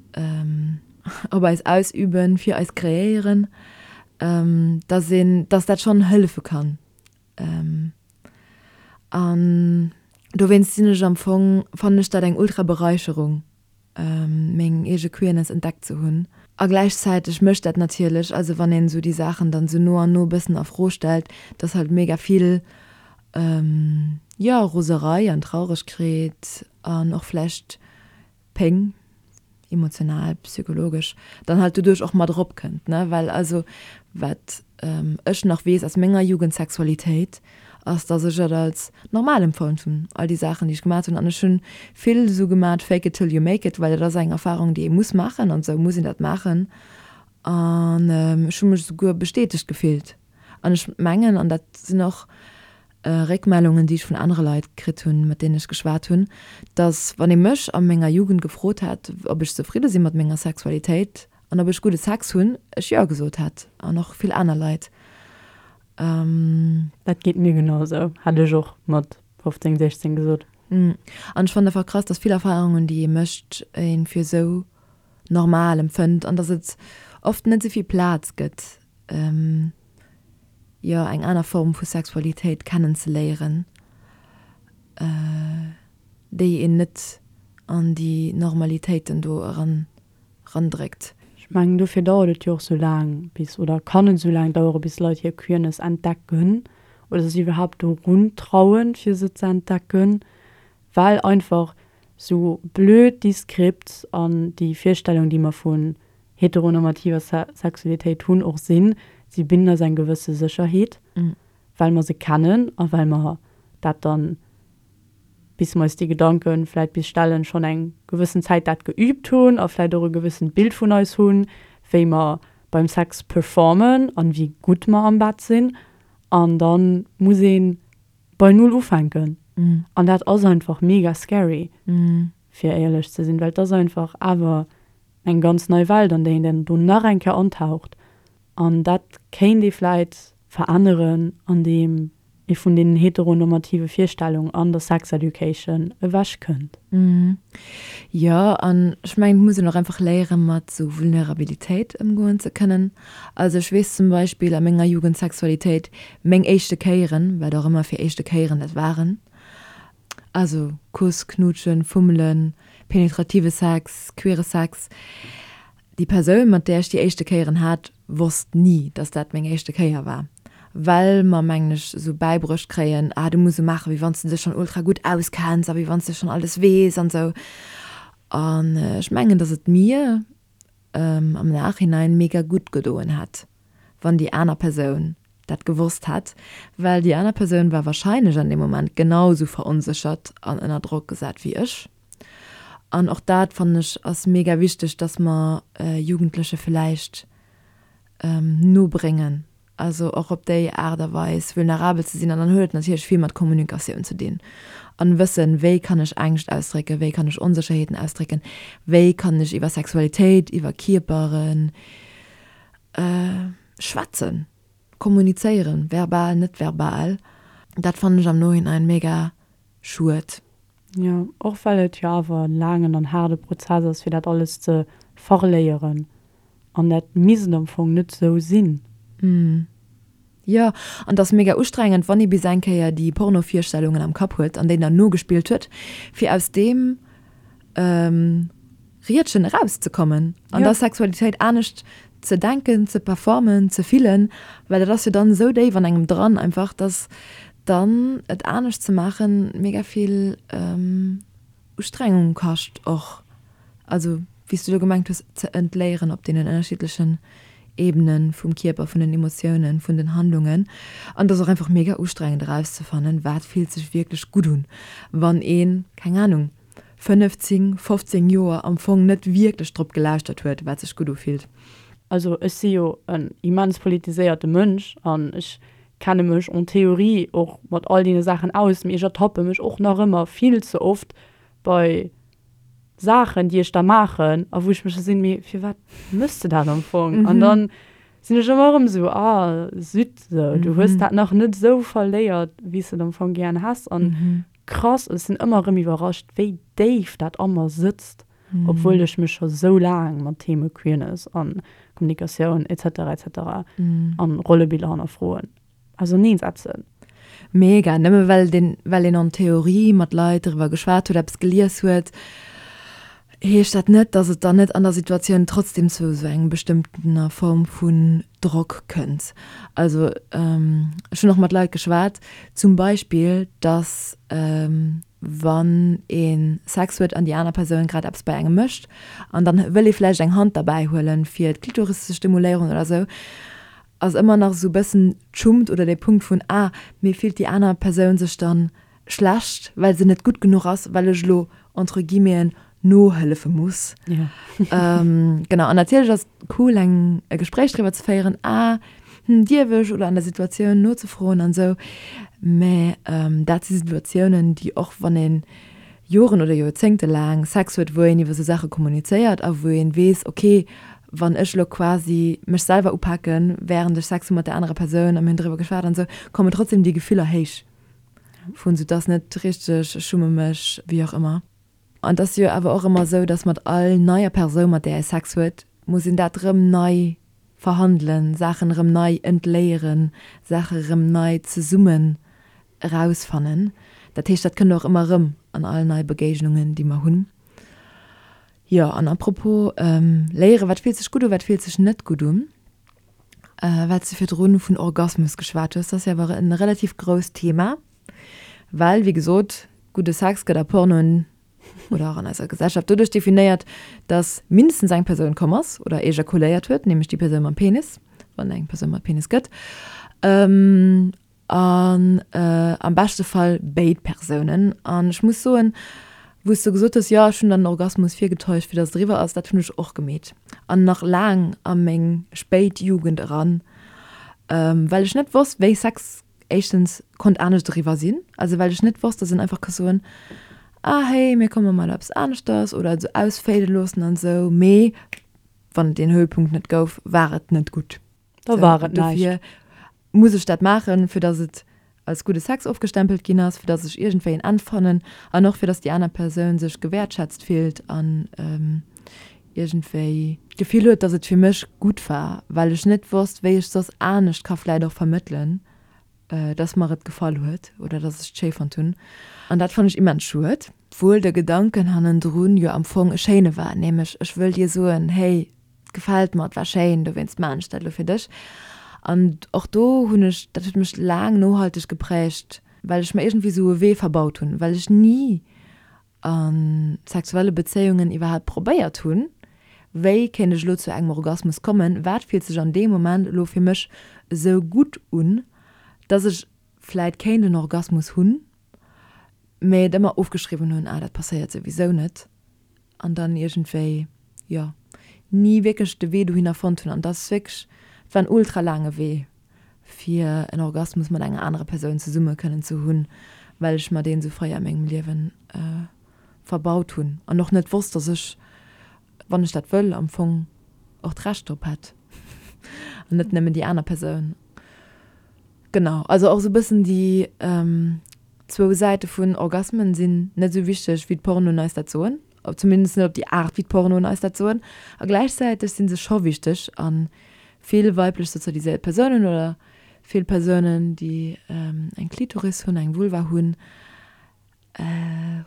op eis ausüben, fir eis kreéieren, dass een, dass dat schonn hëllefe kann. An dowéinst sinn ech am Fong, fannen ech dat eng ultra Beräicherung, meng eege Queerness entdeckt ze hunn. A gläichzäiteg mécht dat natierlech, also wann een esou déi Saachen dann esou no an no e bëssen a Fro stellt, dass halt mega vill, jo, Roserei an Trauregkeet an och vläicht Péng, emotional, psychologesch, dann halt doduerch och mat eropkënnt, ne? Well also wat ech nach weess aus menger Jugendsexualitéit, ass, dass ech et als normal empfonnt hunn, all déi Saachen, déi ech gemat hunn. An ech hunn vill esou gemat, fake it till you make it, well dat ass eng Erfarung, déi ee muss maachen an esou muss een dat maachen. An ech hu mech esouguer bestätegt gefillt. An ech mengen, an dat sinn och Réckmellungen, déi ech vun anere Leit kritt hunn, mat deenen ech geschwat hunn, dass, wann ee mech a menger Jugend gefrot hätt, ob ech zefridde si mat menger Sexualitéit an ob ech gudde Sex hunn, ech Jo gesot hätt, an och vill aner Leit. Dat geet mir genau esou, hätt ech och mat 15, 16 gesot. An ech fannen einfach krass, dass vill Erfarungen, déi ee mécht, ee fir esou normal empfënnt an dass et oft net esou vill Plaz gëtt, jo, eng aner Form vu Sexualitéit kennenzeléieren, déi een net an déi Normalitéiten do eran erandréckt. Ech mengen, dofir dauert et jo och sou laang bis, oder kann et sou laang dauere bis Leit hir Queerness entdecken oder sech iwwerhaapt dorun trauen, fir se ze entdecken, well einfach sou blöd déi Scripts an déi Virstellung, déi mer vun heteronormativer Sexualitéit hunn, och sinn. Si bidden eis eng gewësse Sécherheet. Well mer se kennen a well mer dat dann, bis mer eis déi Gedanke vläit bis stellen, schonn eng gewëssen Zäit dat geübt hunn a vläit och e gewëssent Bild vun eis hunn, wéi mer beim Sex performen an wéi gutt mer am Bett sinn. An da muss ee bei Null ufänken. An dat ass einfach mega scary, fir éierlech ze sinn, well et ass einfach awer eng ganz nei Welt, an déi een dann do nach eng Kéier antaucht. An dat kéint ee vläit veränneren, andeem ee vun deenen heteronormative Virstellungen an der Sex Education ewech kënnt. Jo, an ech mengen, et muss een och einfach léieren, mat esou Vulnerabilitéit ëmgoen ze kënnen. Also ech weess zum Beispill a menger Jugendsexualitéit, meng éischte Kéieren, wat och ëmmer fir éischte Kéieren dat waren, also Kuss, Knuutschen, Fummelen, penetrative Sex, queere Sex, Déi Persoun, mat där ech déi éischte Kéieren hat, wosst ni, dass dat meng éischte Kéier war. Well mer, mengen ech, esou bäibruecht kréien, ah, du muss esou maachen, wéi wann s de dech schonn ultra gutt auskenns a wéi wann s de schonn alles weess an esou. An ech mengen, dass et mir am Nachhinein mega gutt gedoen hätt, wann déi aner Persoun dat gewosst hätt, well déi aner Persoun war warscheinlech an deem Moment genau esou veronséchert an ënner Drock gesat wéi ech. An och dat, fannen ech, ass mega wichteg, dass mer Jugendleche villäicht nobréngen, also och op déi Aart a Weis vulnerabel ze sinn. An dann huet et natierlech vill mat Kommunikatioun ze dinn an wëssen, wéi kann ech Ängscht ausdrécken, wéi kann ech Onsécherheeten ausdrécken, wéi kann ech iwwer Sexualitéit, iwwer Kierpere schwätzen, kommunizéieren, verbal, net verbal. Dat fannen ech am Nohinein mega schued. Jo, och well et jo awer en laangen an haarde Prozess ass, fir dat alles ze verléieren. An dat misst am Fong net sou sinn. Jo, an et ass mega ustrengend, wann ee bis eng Kéier déi Porno-Virstellungen am Kapp huet an déi dann nogespillt huet, fir aus deem Riedchen erauszekommen an der Sexualitéit anescht ze denken, ze performen, ze fillen, well dat ass jo dann esou déif an engem dran einfach, dass dann et anescht ze maachen mega vill Ustrengung kascht och. Also wéi s du elo gemengt hues, ze entléieren op deenen ënnerschiddlechen Ebenen vum Kierper, vun den Emotiounen, vun den Handlungen. An et ass och einfach mega ustrengend erauszefannen, wat fillt sech wierklech gutt un, wann een, keng Anung, 15, 15 Joer am Fong net wierklech drop gelauschtert huet, wat sech gutt ufillt. Also ech si jo en immens politiséierte Mënsch an ech kenne mech en théorie och mat all deene Saachen aus, mee ech ertappe mech och nach ëmmer vill ze oft bei Saachen, déi ech da maachen a wou ech mech da sinn, mee firwat méchs de dat am Fong? An dann sinn ech ëmmer erëm esou, ah zut, sou, du hues dat nach net esou verléiert, wéi s de et am Fong gären häss. An Krass, ech sinn ëmmer erëm iwwerrascht, wéi déif dat a mer sëtzt, obwuel ech mech scho sou laang mat Theme Queerness an Kommunikatioun etc etc an Rollebiller hannerfroen auserneen setzen. Mega, nëmme well den well een en Theorie mat Leit driwwer geschwat huet, eppes gelies huet, heescht dat net, dass et dann net an der Situatioun trotzdem zu esou engem bestëmmtener Form vun Drock kënnt. Also ech hunn och mat Leit geschwat, zum Beispill, dass wann ee Sex huet an déi aner Persoun grad eppes bei engem mécht an dann wëll ee vläicht eng Hand derbäi huelen, fir d'Klitoris ze stimuléieren oder esou, ass ëmmer nach esou e bëssen d'Schummt oder dee Punkt vun, ah, mee fillt déi aner Persoun sech dann schlecht, well se net gutt genuch ass, well ech elo entre guillemeten nohëllefe muss. Ja. ähm, genau, an natierlech ass et cool, eng, e Gespréich driwwer ze féieren, ah, hm, dierf ech, oder an der Situatioun nozefroen an esou. Mä ähm, dat si Situatiounen, déi och wann ee Joren oder Joerzéngte laang Sex huet, wou een iwwer esou Saache kommunizéiert a wou een weess, okay, wann ech elo quasi mech selwer upaken, wärend ech Sex hu mat där anerer Persoun a mir hunn driwwer geschwat an esou, kommen trotzdem déi Gefiller héich. Vun sou 't ass net richteg, ech schumme mech, wéi och ëmmer. An 't ass jo awer och ëmmer sou, dass mat all neier Persoun, mat där ee Sex huet, muss een dat rëm nei verhandelen, Saachen erëm nei entléieren, Saache rëm nei zesummen erausfannen. Dat heescht, dat kënnt och ëmmer erëm an all nei Begéignungen, déi mer hunn. Jo, an à propos léieren, wat fillt sech gutt u, wat fillt sech net gutt un? Well s de virdrun vun Orgasmus geschwat hues, dat ass jo awer e relativ grousst Thema, well, wéi gesot, gudde Sex gëtt a Pornoen oder och an eiser Gesellschaft doduerch definéiert, dass mindestens eng Persoun komm ass oder ejakuléiert huet, nämlech déi Persoun mam Penis, wann et eng Persoun mat Penis gëtt. An am beschte Fall béid Persounen. An ech muss soen, wou s du gesot hues, jo ech hunn dann den Orgasmus virgetäuscht, fir datt et eriwwer ass, dat hunn ech och gemeet. An nach laang a meng spéit Jugend eran, well ech net wosst, wéi Sex éischtens konnt anescht eriwwer sinn. Also well ech net wosst, datt een einfach ka soen, ah hey, mir komme mol eppes aneschters oder et esou ausfade loossen an esou. Mee wann et deen Höhepunkt net gouf, war et net gutt. Da war et näischt. Muss ech dat maachen, fir dass et als gudde Sex ofgestempelt ginn ass, fir dass ech iergendwéi en Enn fannen an och fir dass déi aner Persoun sech gewäertschätzt fillt an iergendwéi d'Gefill huet, dass et fir mech gutt war, well ech net wosst, wéi ech soss anescht ka vläit och vermëttelen, dass mer et gefall huet oder dass ech et schéi fonnt hunn. An dat fannen ech immens schued. Obwuel de Gedanken hannendrun jo am Fong e schéine war, nämlech ech wëll dir soen, hey, Et gefält mer, et war schéin, dowéinst maan ech dat elo fir dech. An och do hunn ech, dat huet mech laang nohalteg geprägt, well ech mer iergendwéi esou e Wee verbaut hunn, well ech ni a sexuelle Bezéiungen iwwerhaapt probéiert hunn, wéi kéint ech elo zu engem Orgasmus kommen, wat fillt sech an deem Moment elo fir mech esou gutt un, dass ech vläit kéint en Orgasmus hunn, mä et ëmmer ofgeschriwwen hunn, ah dat passéiert souwisou net. an dann iergendwéi, jo, ni wierklech de Wee dohinner fonnt hunn. An dat ass wierklech, et war en ultra laange Wee, fir en Orgasmus mat enger anerer Persoun zesumme kënnen ze hunn, well ech mer deen esou fréi a mengem Liewen verbaut hunn an och net wosst, dass ech, wann ech dat wëll, am Fong och d'Recht drop hätt an net nëmmen déi aner Persoun. Genau, also och esou e bëssen déi zwou Säite vun Orgasmen sinn net esou wichteg, wéi d'Pornoen eis dat soen, zumindest net op déi Aart, wéi d'Pornoen eis dat soen. A gläichzäiteg si se scho wichteg a vill weiblech sozialiséiert Persounen oder vill Persounen, déi eng Klitoris hunn, eng Vulva hunn,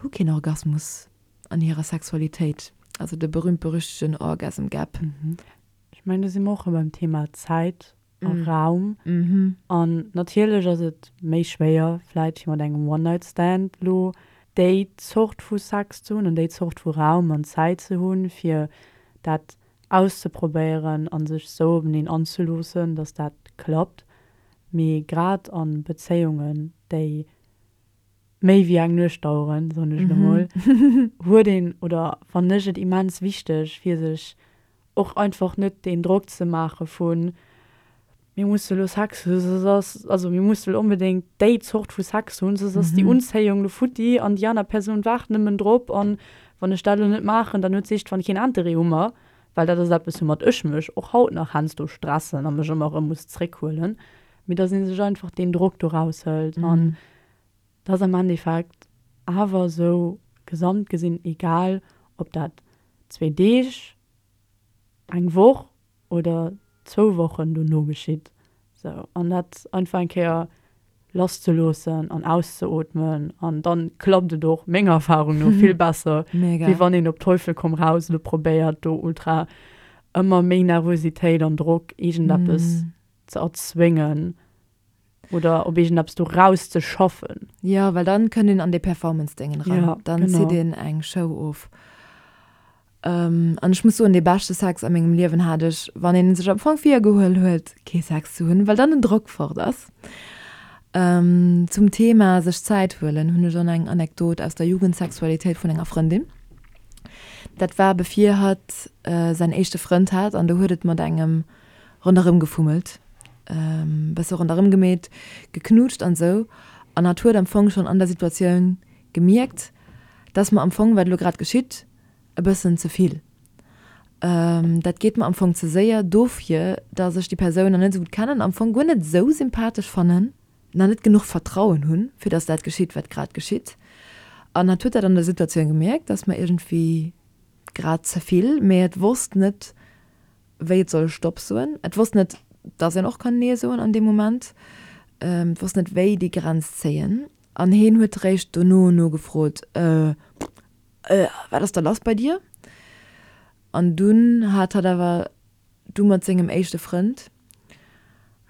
hu keen Orgasmus an hirer Sexualitéit, also de berühmt-berüchtegten Orgasm Gap. Ech mengen, do si mer och erëm beim Thema Zäit a Raum. An natierlech ass et méi schwéier vläit fir mat engem One-Night-Stand lo déi Zort vu Sex ze hunn an déi Zort vu Raum an Zäit ze hunn, fir dat auszeprobéieren a sech sou openeen anzeloossen, dass dat klappt. Mee grad a Bezéiungen, déi méi wéi eng Nuecht daueren, soen ech elo mol, huet een oder fannen ech et immens wichteg, fir sech och einfach net deen Drock ze maache vun, mir musse lo Sex hunn, soss ass, also mir musse lo onbedéngt déi Zort vu Sex hunn, soss ass déi Unzéiung lo futti an déi aner Persoun waart nëmmen drop an wann ech dat lo net maachen, dann huet s'eescht wann keen Interêt u mer, well dat ass eppes woumat ech mech och haut nach heiansdo stressen a mech ëmmer erëm muss zréckhuelen, mee dass ee sech einfach deen Drock do raushëlt an Et ass am Endeffekt awer esou gesamt gesinn egal, ob dat zwee Deeg, eng Woch oder zwou Wochen dono geschitt. Sou, an dat einfach eng Kéier lasszeloossen an auszeootmen an dann klappt et och menger Erfahrung no vill besser, wéi wann een op Teufel komm raus elo probéiert do ultra ëmmer méi Nervositéit an Drock iergendeppes ze erzwéngen. Oder op iergendeppes do rauszeschaffen. Jo, well dann kënnt een an dee Performance-Déngen eran. Ja, dann genau. zitt een eng Show of. An ech muss soen, dee beschte Sex a mengem Liewen hat ech, wann een sech am Fong virgehuel huet, kee Sex ze hunn, well dann den Drock fort ass. Zum Thema sech Zäit huelen hunn ech och nach eng Anekdot aus der Jugendsexualitéit vun enger Frëndin. Dat war bevir hatt säin éischte Frënd hat an do huet et mat engem ronderëm gefummelt, bësse ronderëm gemeet, geknutscht an esou. An hatt huet am Fong schonn an der Situatioun gemierkt, dass mer am Fong, wat elo grad geschitt, e bëssen ze vill. Dat geet mer am Fong ze séier, dofir, dass ech déi Persoun nach net esou gutt kennen, am Fong guer net esou sympathesch fannen, nach net genuch Vertrauen hunn, fir dass dat geschitt, wat grad geschitt. An hatt huet dat an der Situatioun gemierkt, dass mer iergendwéi grad ze vill, mee et wosst net, wéi et soll Stopp soen. Et wosst net, dass een och kann Nee soen an deem Moment. Et wosst net, wéi déi Grenz zéien. An heen huet réischt dono nogefrot, Äh, äh, wat ass da lass bei dir? An dunn hat hatt awer du mat sengem éischte Frënd,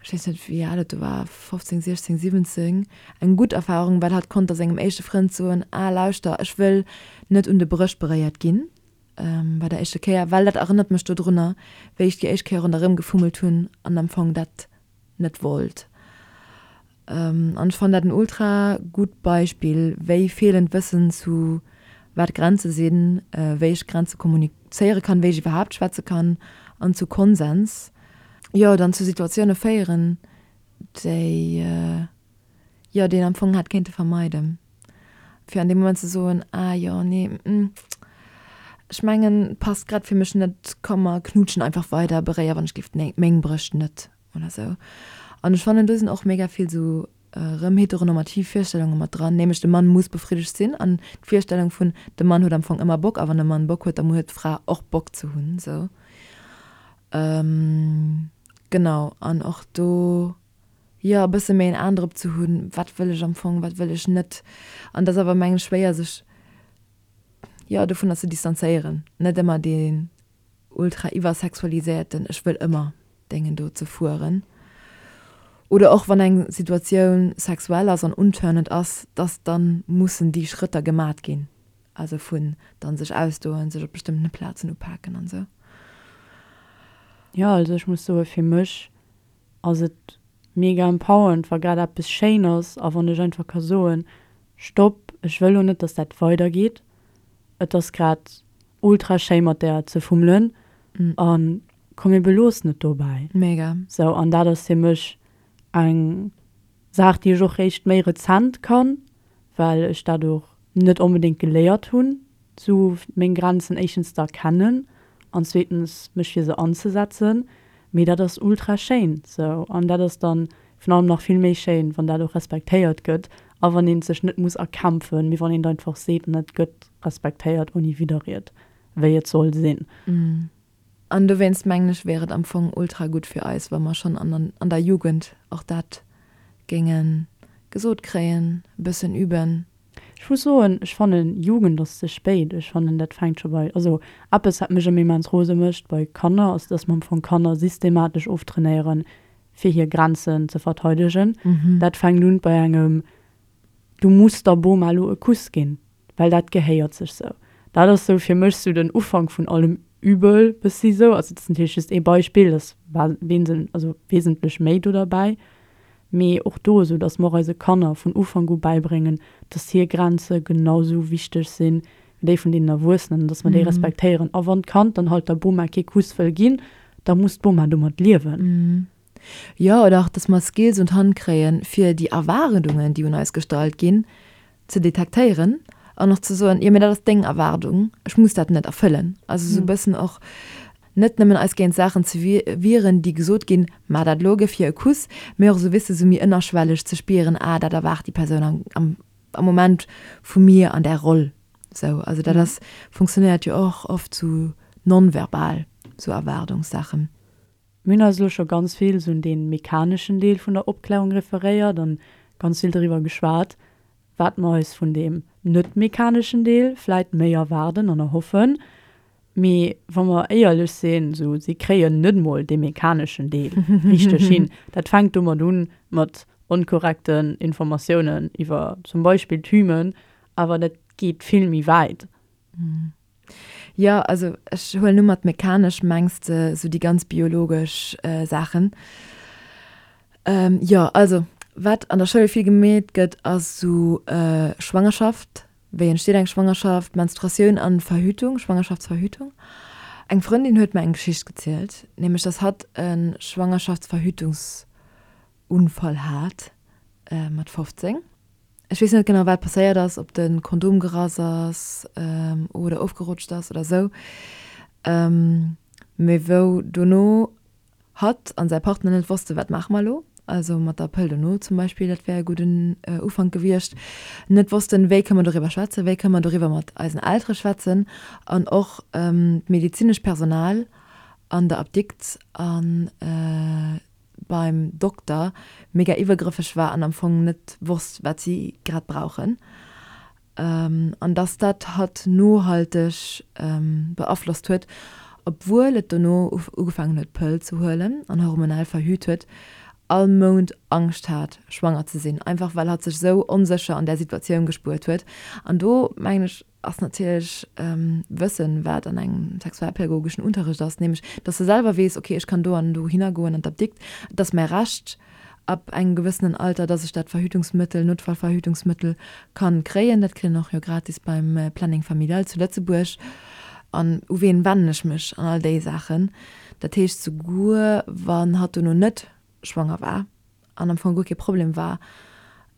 ech weess net, wéi al et do war, 15, 16, 17, eng gutt Erfarung, well hatt konnt da sengem éischte Frënd soen, Ah, lauschter, ech wëll net un de Brëscht beréiert ginn. Bei der éischter Kéier, well dat erënnert mech dodrunner, wéi ech déi éischt Kéier ronderëm gefummelt hunn an am Fong dat net wollt. An ech fannen dat en ultra gutt Beispill, wéi feelend Wëssen zu wat Grenze sinn, wéi ech Grenze kommunizéiere kann, wéi ech iwwerhaapt schwätze kann an zu Konsens, jo, dann zu Situatioune féieren, déi, jo, déi een am Fong hätt kéinte vermeiden. Fir an deem Moment ze soen, ah jo, nee, ech mengen, passt grad fir mech net, komm mer knutschen einfach weider, beréier wann ech géif meng Brëscht net. Oder sou. An ech fannen, do sinn och mega vill sou erëm heteronormativ Virstellunge mat dran, nämlech de Mann muss befriddegt sinn an d'Virstellung vun de Mann huet am Fong ëmmer Bock a wann de Mann Bock huet, da huet d'Fra och Bock ze hunn, sou. Genau, an och do, jo, e bësse méi en An drop ze hunn, wat wëll ech am Fong, wat wëll ech net. An et ass awer, mengen ech, schwéier sech, jo, dovunner ze distanzéieren, net ëmmer dee ultra iwwersexualiséierten ech wëll ëmmer Déngen do ze fueren. Oder och wann eng Situatioun sexuell ass an untörnend ass, dass dann mussen déi Schrëtter gemat ginn, also vun dann sech ausdoen, sech op bestëmmtene Plazen upaken an esou. Jo, also ech muss soe fir mech ass et mega empowernd wa grad eppes schéin ass a wann ech einfach ka soen, Stopp, ech wëll lo net, dass dat weidergeet, et ass grad ultra schéi mat där ze fummelen an komm mir beloossen et dobäi. Mega. Sou, an dat ass fir mech eng Saach déi ech och réischt méi rezent kann, well ech dat och net onbedéngt geléiert hunn, sou meng Grenzen éischtens ze erkennen an zweetens mech fir se anzesetzen. Mee dat ass ultra schéin sou an dat ass dann virun allem nach vill méi schéin, wann dat och respektéiert gëtt a wann een et sech net muss erkämpfen, mee wann een et einfach seet an et gëtt respektéiert ouni Widderried, wéi et soll sinn. An dowéinst mengen ech, wär et am Fong ultra gutt fir eis, wa mer schonn an an der Jugend och dat géinge gesot kréien, e bëssen üben. Ech muss soen, ech fannen, Jugend ass ze spéit. Ech fannen, dat fänkt scho bei, also eppes wat mech ëmmer immens rose mécht bei Kanner, ass, dass mer am Fong Kanner systematesch oftrainéieren, fir hir Grenzen ze verteidegen. Dat fänkt un bei engem Du muss der Boma elo e Kuss ginn, well dat gehéiert sech sou. Dat ass sou fir mech sou den Ufank vun allem Übel bëssi sou. Also dat ass natierlech just ee Beispill, et ass also wesentlech méi do derbäi. Mee och do esou, datt mer och eise Kanner vun Ufank u bäibréngen, datt hir Grenze genau sou wichteg sinn wéi déi vun deenen Erwuessenen an datt mer déi respektéieren. A wann d'Kand dann halt der Boma kee Kuss wëll ginn, da muss d'Boma domat liewen. Jo, oder och, datt mer Skills un d'Hand kréien, fir déi Erwaardungen, déi un eis gestallt ginn, ze detektéieren an och ze soen, jo, mee dat ass deng Erwaardung, ech muss dat net erfëllen. Also esou e bëssen och net nëmmen eis géint Saachen ze wieren, déi gesot ginn, Maach dat elo, gëff hir e Kuss, mee och esou, weess de, esou méi ënnerschwelleg ze spieren, Ah, dat erwaart déi Persoun am, am, am Moment vu mir an där Roll. Esou, also dat ass, funktionéiert jo och oft sou nonverbal, sou Erwaardungssaachen. Mir hunn eis elo scho ganz vill sou un dee mechaneschen Deel vun der Opklärung referéiert an ganz vill doriwwer geschwat, wat mer eis vun deem net mechaneschen Deel vläit méi erwaarden an erhoffen. Mee wa mer éierlech sinn, sou si kréien net mol dee mechaneschen Deel richteg hin. Dat fänkt domat un, mat onkorrekten Informatiounen iwwer zum Beispill d'Hymen, awer dat geet vill méi wäit. Jo, also ech huelen u mat mechanesch mengs de sou déi ganz biologesch Saachen. Jo, also wat an der Schoul vill gemeet gëtt ass sou Schwangerschaft, wéi entsteet eng Schwangerschaft, Menstruatioun an Verhütung, Schwangerschaftsverhütung. Eng Frëndin huet mer eng Geschicht gezielt, nämlech dass hatt e Schwangerschaftsverhütungsunfall hat mat 15. Ech weess net genau wat passéiert ass, ob de Kondom gerass ass oder ofgerutscht ass oder sou, mee wou dono hatt an säi Partner net wosste wat maache mer elo, also mat der Pëll dono zum Beispill, dat wär e gudden Ufank gewiescht, net wossten wéi kënne mer doriwwer schwätzen, wéi kënne mer doriwwer mat eisen Eltere schwätzen an och d'medezinescht Personal an der Apdikt an beim Dokter mega iwwergrëffeg war an am Fong net wosst, wat si grad brauchen. An dass dat hatt nohalteg beaflosst huet, obwuel et dono ugefaangen huet d'Pëll ze huelen an hormonell verhüt huet, all Mount Angscht hat schwanger ze sinn, einfach well hatt sech sou onsécher an där Situatioun gespuert huet. An do mengen ech, ass natierlech wëssen, wat an engem sexualpädagogeschen Unterrecht ass, nämlech dass de selwer weess, okay, ech kann do an dohinner goen an d'Apdikt, et ass mäi Recht. Ab engem gewëssenen Alter, dass ech dat Verhütungsmëttel, Notfallverhütungsmëttel kann kréien. Dat kritt een och jo gratis beim Planning Familial zu Lëtzebuerg. An u ween wennen ech mech an all déi Saachen. Dat heescht, souguer wann hatt dono net schwanger war an am Fong guer kee Problem war,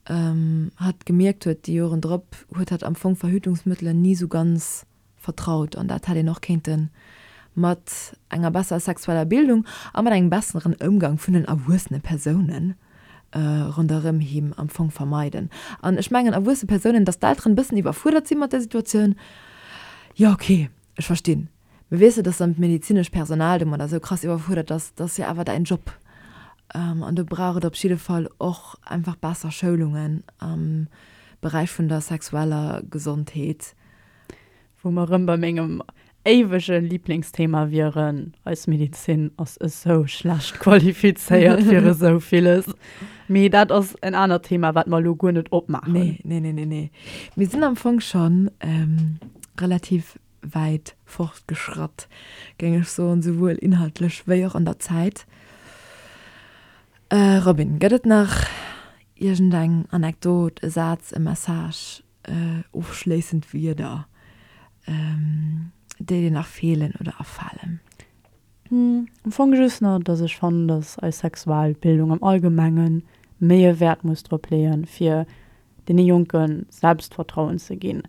hatt gemierkt huet déi Joren drop, huet hatt am Fong Verhütungsmëttelen ni sou ganz vertraut an dat hätt een och kéinte mat enger besserer sexueller Bildung a mat engem besseren Ëmgang vun den erwuessene Persoune ronderëm him am Fong vermeiden. An ech mengen erwuesse Persounen, datt d'Elteren e bëssen iwwerfuerdert si mat där Situatioun, jo ok, ech verstinn, mee weess de, datt dann d'medezinescht Personal domadder esou krass iwwerfuerdert ass, dat ass jo awer däin Job. An do brauch et op jidde Fall och einfach besser Schoulungen am Beräich vun der sexueller Gesondheet. Wou mer erëm bei mengem éiwege Liblingsthema wieren, Eis Medezin ass esou schlecht qualifizéiert fir esou villes. Mee dat ass en anert Thema, wat mer elo guer net opmaachen. Nee, nee, nee, nee, nee. Mir sinn am Fong scho relativ wäit fortgeschratt, géing ech soen, souwuel inhaltlech wéi och an der Zäit. Robin, gëtt et nach iergendeng Anekdot, e Saz, e Message, Ofschléissend Wierder, déi dir nach feelen oder afalen? Am Fong just nach, dass ech fannen, dass eis Sexualbildung am Allgemenge méi e Wäert muss drop leeën, fir deene Jonke Selbstvertrauen ze ginn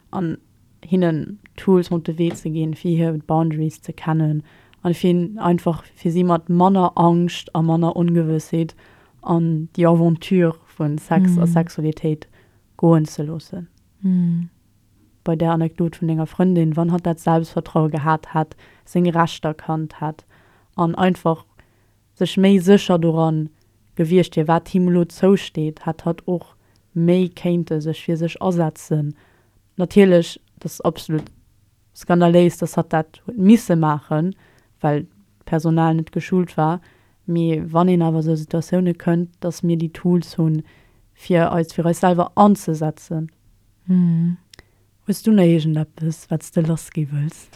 an hinnen Tools mat op de Wee ze ginn, fir hir Boundaries ze kennen an fir einfach fir si mat manner Angscht a manner Ongewëssheet an déi Aventure vu Sex a Sexualitéit goen ze loossen. Bei där Anekdot vun denger Frëndin, wann hatt dat Selbstvertraue gehat hätt, seng Rechter kannt hätt an einfach sech méi sécher doran gewiescht wier, wat him elo zousteet, hätt hatt och méi kéinte sech fir sech asetzen. Natierlech, dat ass absolut skandaléis, dass hatt dat huet misse maachen, well d'Personal net geschult war, Mee wann een awer esou Situatioune kënnt, dass mir déi Tools hunn, fir eis fir eis selwer anzesetzen. Hues du nach iergendeppes, wat s de lassgi wëlls?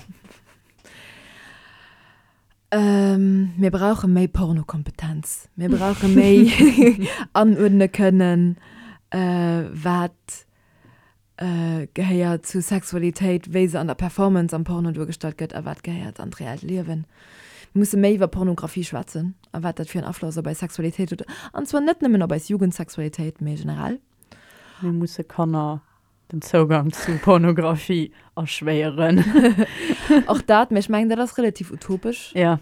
Mir brauche méi Pornokompetenz. Mir brauche méi anuerdne kënnen, wat gehéiert zu Sexualitéit, wéi se an der Performance am Porno duergestallt gëtt, a wat gehéiert an d'reellt Liewen. Mir musse méi iwwer Pornografie schwätzen a wat dat fir en Afloss op eis Sexualitéit huet, an zwar net nëmmen op eis Jugendsexualitéit, mee generell. Mir musse Kanner den Zougang zu Pornografie erschwéieren. Och dat, mee ech mengen, dat ass relativ utopesch. Ja.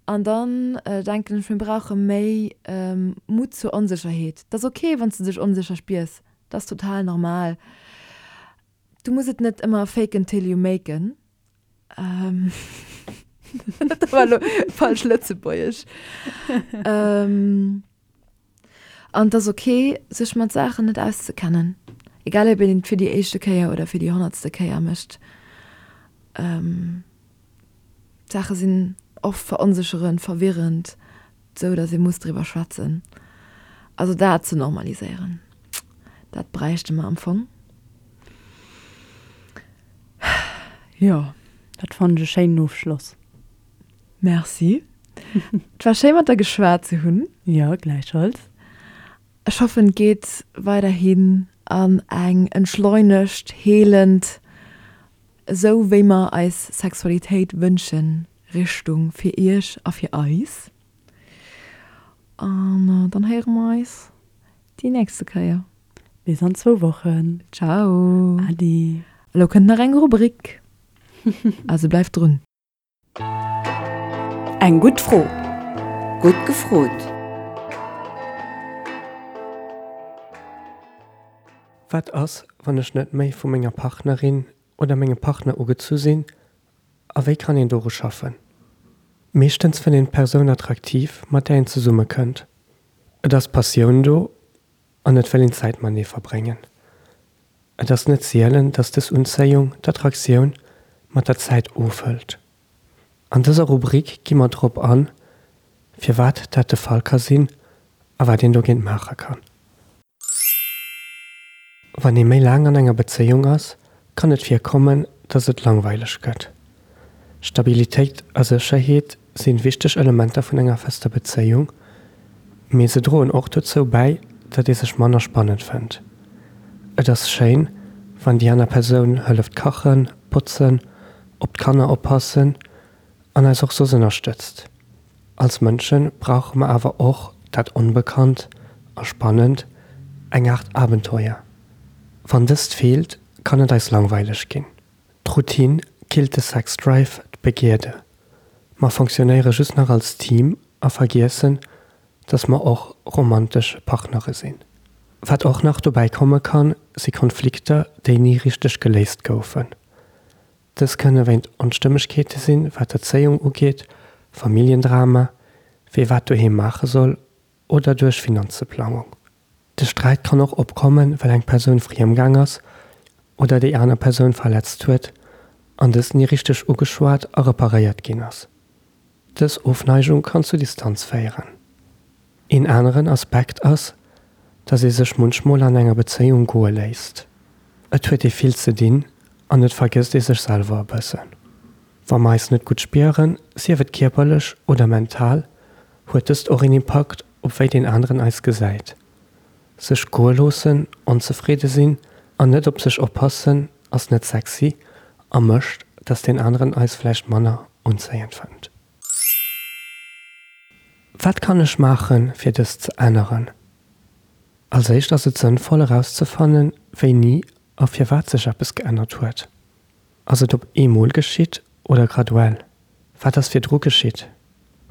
An dann denken ech, mir brauche méi Mut zur Onsécherheet. Et ass ok, wann s de dech onsécher spiers. Dat ass total normal. Du muss et net ëmmer faken till you maken. Dat war elo falsch Lëtzebuergesch. An et ass ok, sech mat Saachen net auszekennen. Egal ob een et fir déi éischte Kéier oder fir déi honnertste Kéier mécht. D'Saache sinn oft veronsécherend, verwirrend, sou datt ee muss driwwer schwätzen. Also dat ze normaliséieren, dat bräichte mer am Fong. Jo. Dat fannen ech e schéinen Ofschloss. Merci. Et war schéi mat der geschwat ze hunn. Jo, gläichfalls. Ech hoffen et geet weiderhin an eng entschleunegt, heelend Esou wéi mer eis Sexualitéit wënschen, Richtung fir iech a fir eis. An dann héiere mer eis déi nächste Kéier. Bis an zwou Wochen. Ciao. Adi. Elo kënnt nach eng Rubrik, also bleift drun. Eng gutt Fro. Gutt gefrot. Wat ass, wann ech net méi vu menger Partnerin oder mengem Partner ugezu sinn a wéi kann een doru schaffen? Meeschtens fënnt een d'Persoun attraktiv, mat där een zesumme kënnt. Et ass Passioun do an et wëll een Zäit matenee verbréngen. Et ass net sielen, dass dës Unzéiung, d'Attraktioun, mat der Zäit ofhëlt. An dëser Rubrik gi mer drop an, firwat dat de Fall ka sinn a wat een dogéint maache kann. Wann ee méi laang an enger Bezéiung ass, kann et virkommen, dass et langweileg gëtt. Stabilitéit a Sécherheet sinn wichteg Elementer vun enger fester Bezéiung. Mee se droen och dozou bäi, datt ee sech manner spannend fënnt. Et ass schéin, wann déi aner Persoun hëlleft kachen, botzen, op d'Kanner oppassen an eis och soss ënnerstëtzt. Als Mënsche brauche mer awer och dat Onbekannt a Spannend, eng Aart Abenteuer. Wann dëst feelt, kann et eis langweileg ginn. D'Routine killt de Sexdrive, d'Begierde. Mer fonctionnéiere just nach als Team a vergiessen, dass mer och romantesch Partnere sinn. Wat och nach dobäi komme kann, si Konflikter, déi ni richteg geléist goufen. Dës kënne wéint Onstëmmegkeete sinn, wat d'Erzéiung ugeet, Familljendrama, wee wat doheem maache soll oder duerch Finanzeplangung. De Sträit kann och opkommen, well eng Persoun friemgaang ass oder déi aner Persoun verletzt huet an dëst ni richteg ugeschwat a reparéiert ginn ass. Dës Ofneigung kann zu Distanz féieren. Een aneren Aspekt ass, dass ee sech munchmol an enger Bezéiung goe léisst. Et huet ee vill ze dinn an et vergësst ee sech selwer e bëssen. Wa mer eis net gutt spieren, sief et kierperlech oder mental, huet dëst och een Impakt op wéi deen aneren eis gesäit. Sech goe loossen, onzefridde sinn an net op sech oppassen ass net sexy a mécht, dass deen aneren eis vläicht manner unzéiend fënnt. Wat kann ech maachen, fir dëst ze änneren? Als éischt ass et sënnvoll erauszefannen, wéini a firwat sech eppes geännert huet. Ass et op eemol geschitt oder graduell? Wat ass virdru geschitt?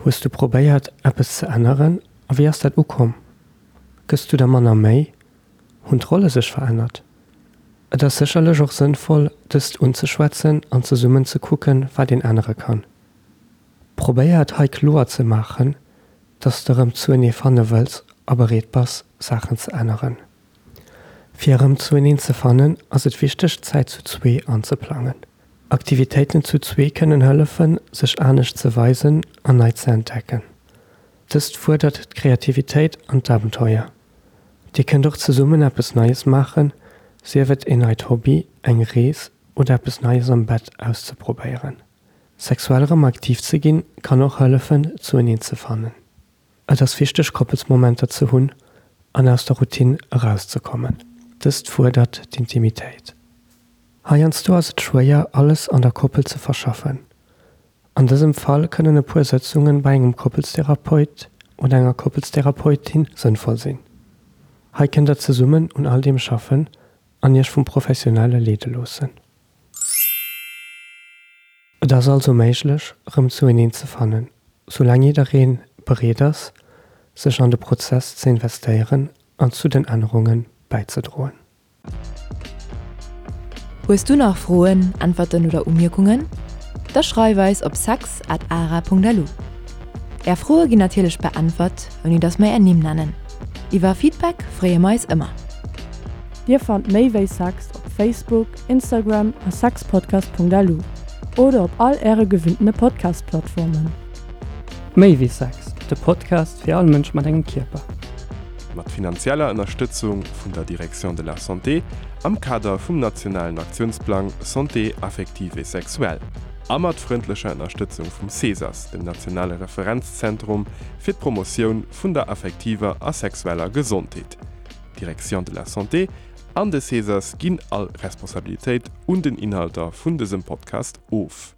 Hues du probéiert, eppes ze änneren a wéi ass dat ukomm? Gëss du der manner Méi? Hunn d'Rolle sech verännert? Et ass sécherlech och sënnvoll, dëst unzeschwätzen an zesummen ze kucken, wat een ännere kann. Probéier et hei kloer ze maachen, dass de erëm zuenee fanne wëlls a bereet bass, Saachen ze änneren. Fir erëm zueneen ze fannen, ass et wichteg, Zäit zu zwee anzeplangen. Aktivitéiten zu zwee kënnen hëllefen, sech anescht ze weisen an nei ze entdecken. Dëst fuerdert d'Kreativitéit an d'Abenteuer. Dir kënnt och zesummen eppes Neies maachen, sief et een neit Hobby, eng Rees oder eppes Neies am Bett auszeprobéieren. Sexuell erëm aktiv ze ginn, kann och hëllefen, zueneen ze fannen. Et ass wichteg Koppelsmomenter ze hunn an aus der Routine erauszekommen. Dëst fuerdert d'Intimitéit. Heiansdo ass et schwéier alles an der Koppel ze verschaffen. An dësem Fall kënnen e puer Sëtzungen bei engem Koppelstherapeut oder enger Koppelstherapeutin sënnvoll sinn. Hei kënnt der zesummen un all deem schaffen an iech vum Professionelle leede loossen. Et ass also méiglech, erëm zueneen ze fannen, soulaang jidderee bereet ass, sech an de Prozess ze investéieren an zu den Ännerunge bäizedroen. Hues du nach Froen, Äntwerten oder Umierkungen? Da schreif eis op sex at ara.lu. Är Froe ginn natierlech beäntwert, ouni dass mer är Nimm nennen. Iwwer Feedback freeë mer eis ëmmer. Dir fannt méi wéi Sex op Facebook, Instagram a sexpodcast.lu oder op all äre gewinntene Podcast-Plattformen. Méi wéi Sex, de Podcast fir all Mënsch mat engem Kierper. Mat finanzieller Ënnerstëtzung vun der Direction de la Santé am Kader vum nationalen Aktiounsplang Santé affective et sexuelle a mat frëndlecher Ënnerstëtzung vum CESAS, dem nationale Referenzzentrum fir d'Promotioun vun der affektiver a sexueller Gesondheet. D'Direction de la Santé an de CESAS ginn all Responsabilitéit un den Inhalter vun dësem Podcast of.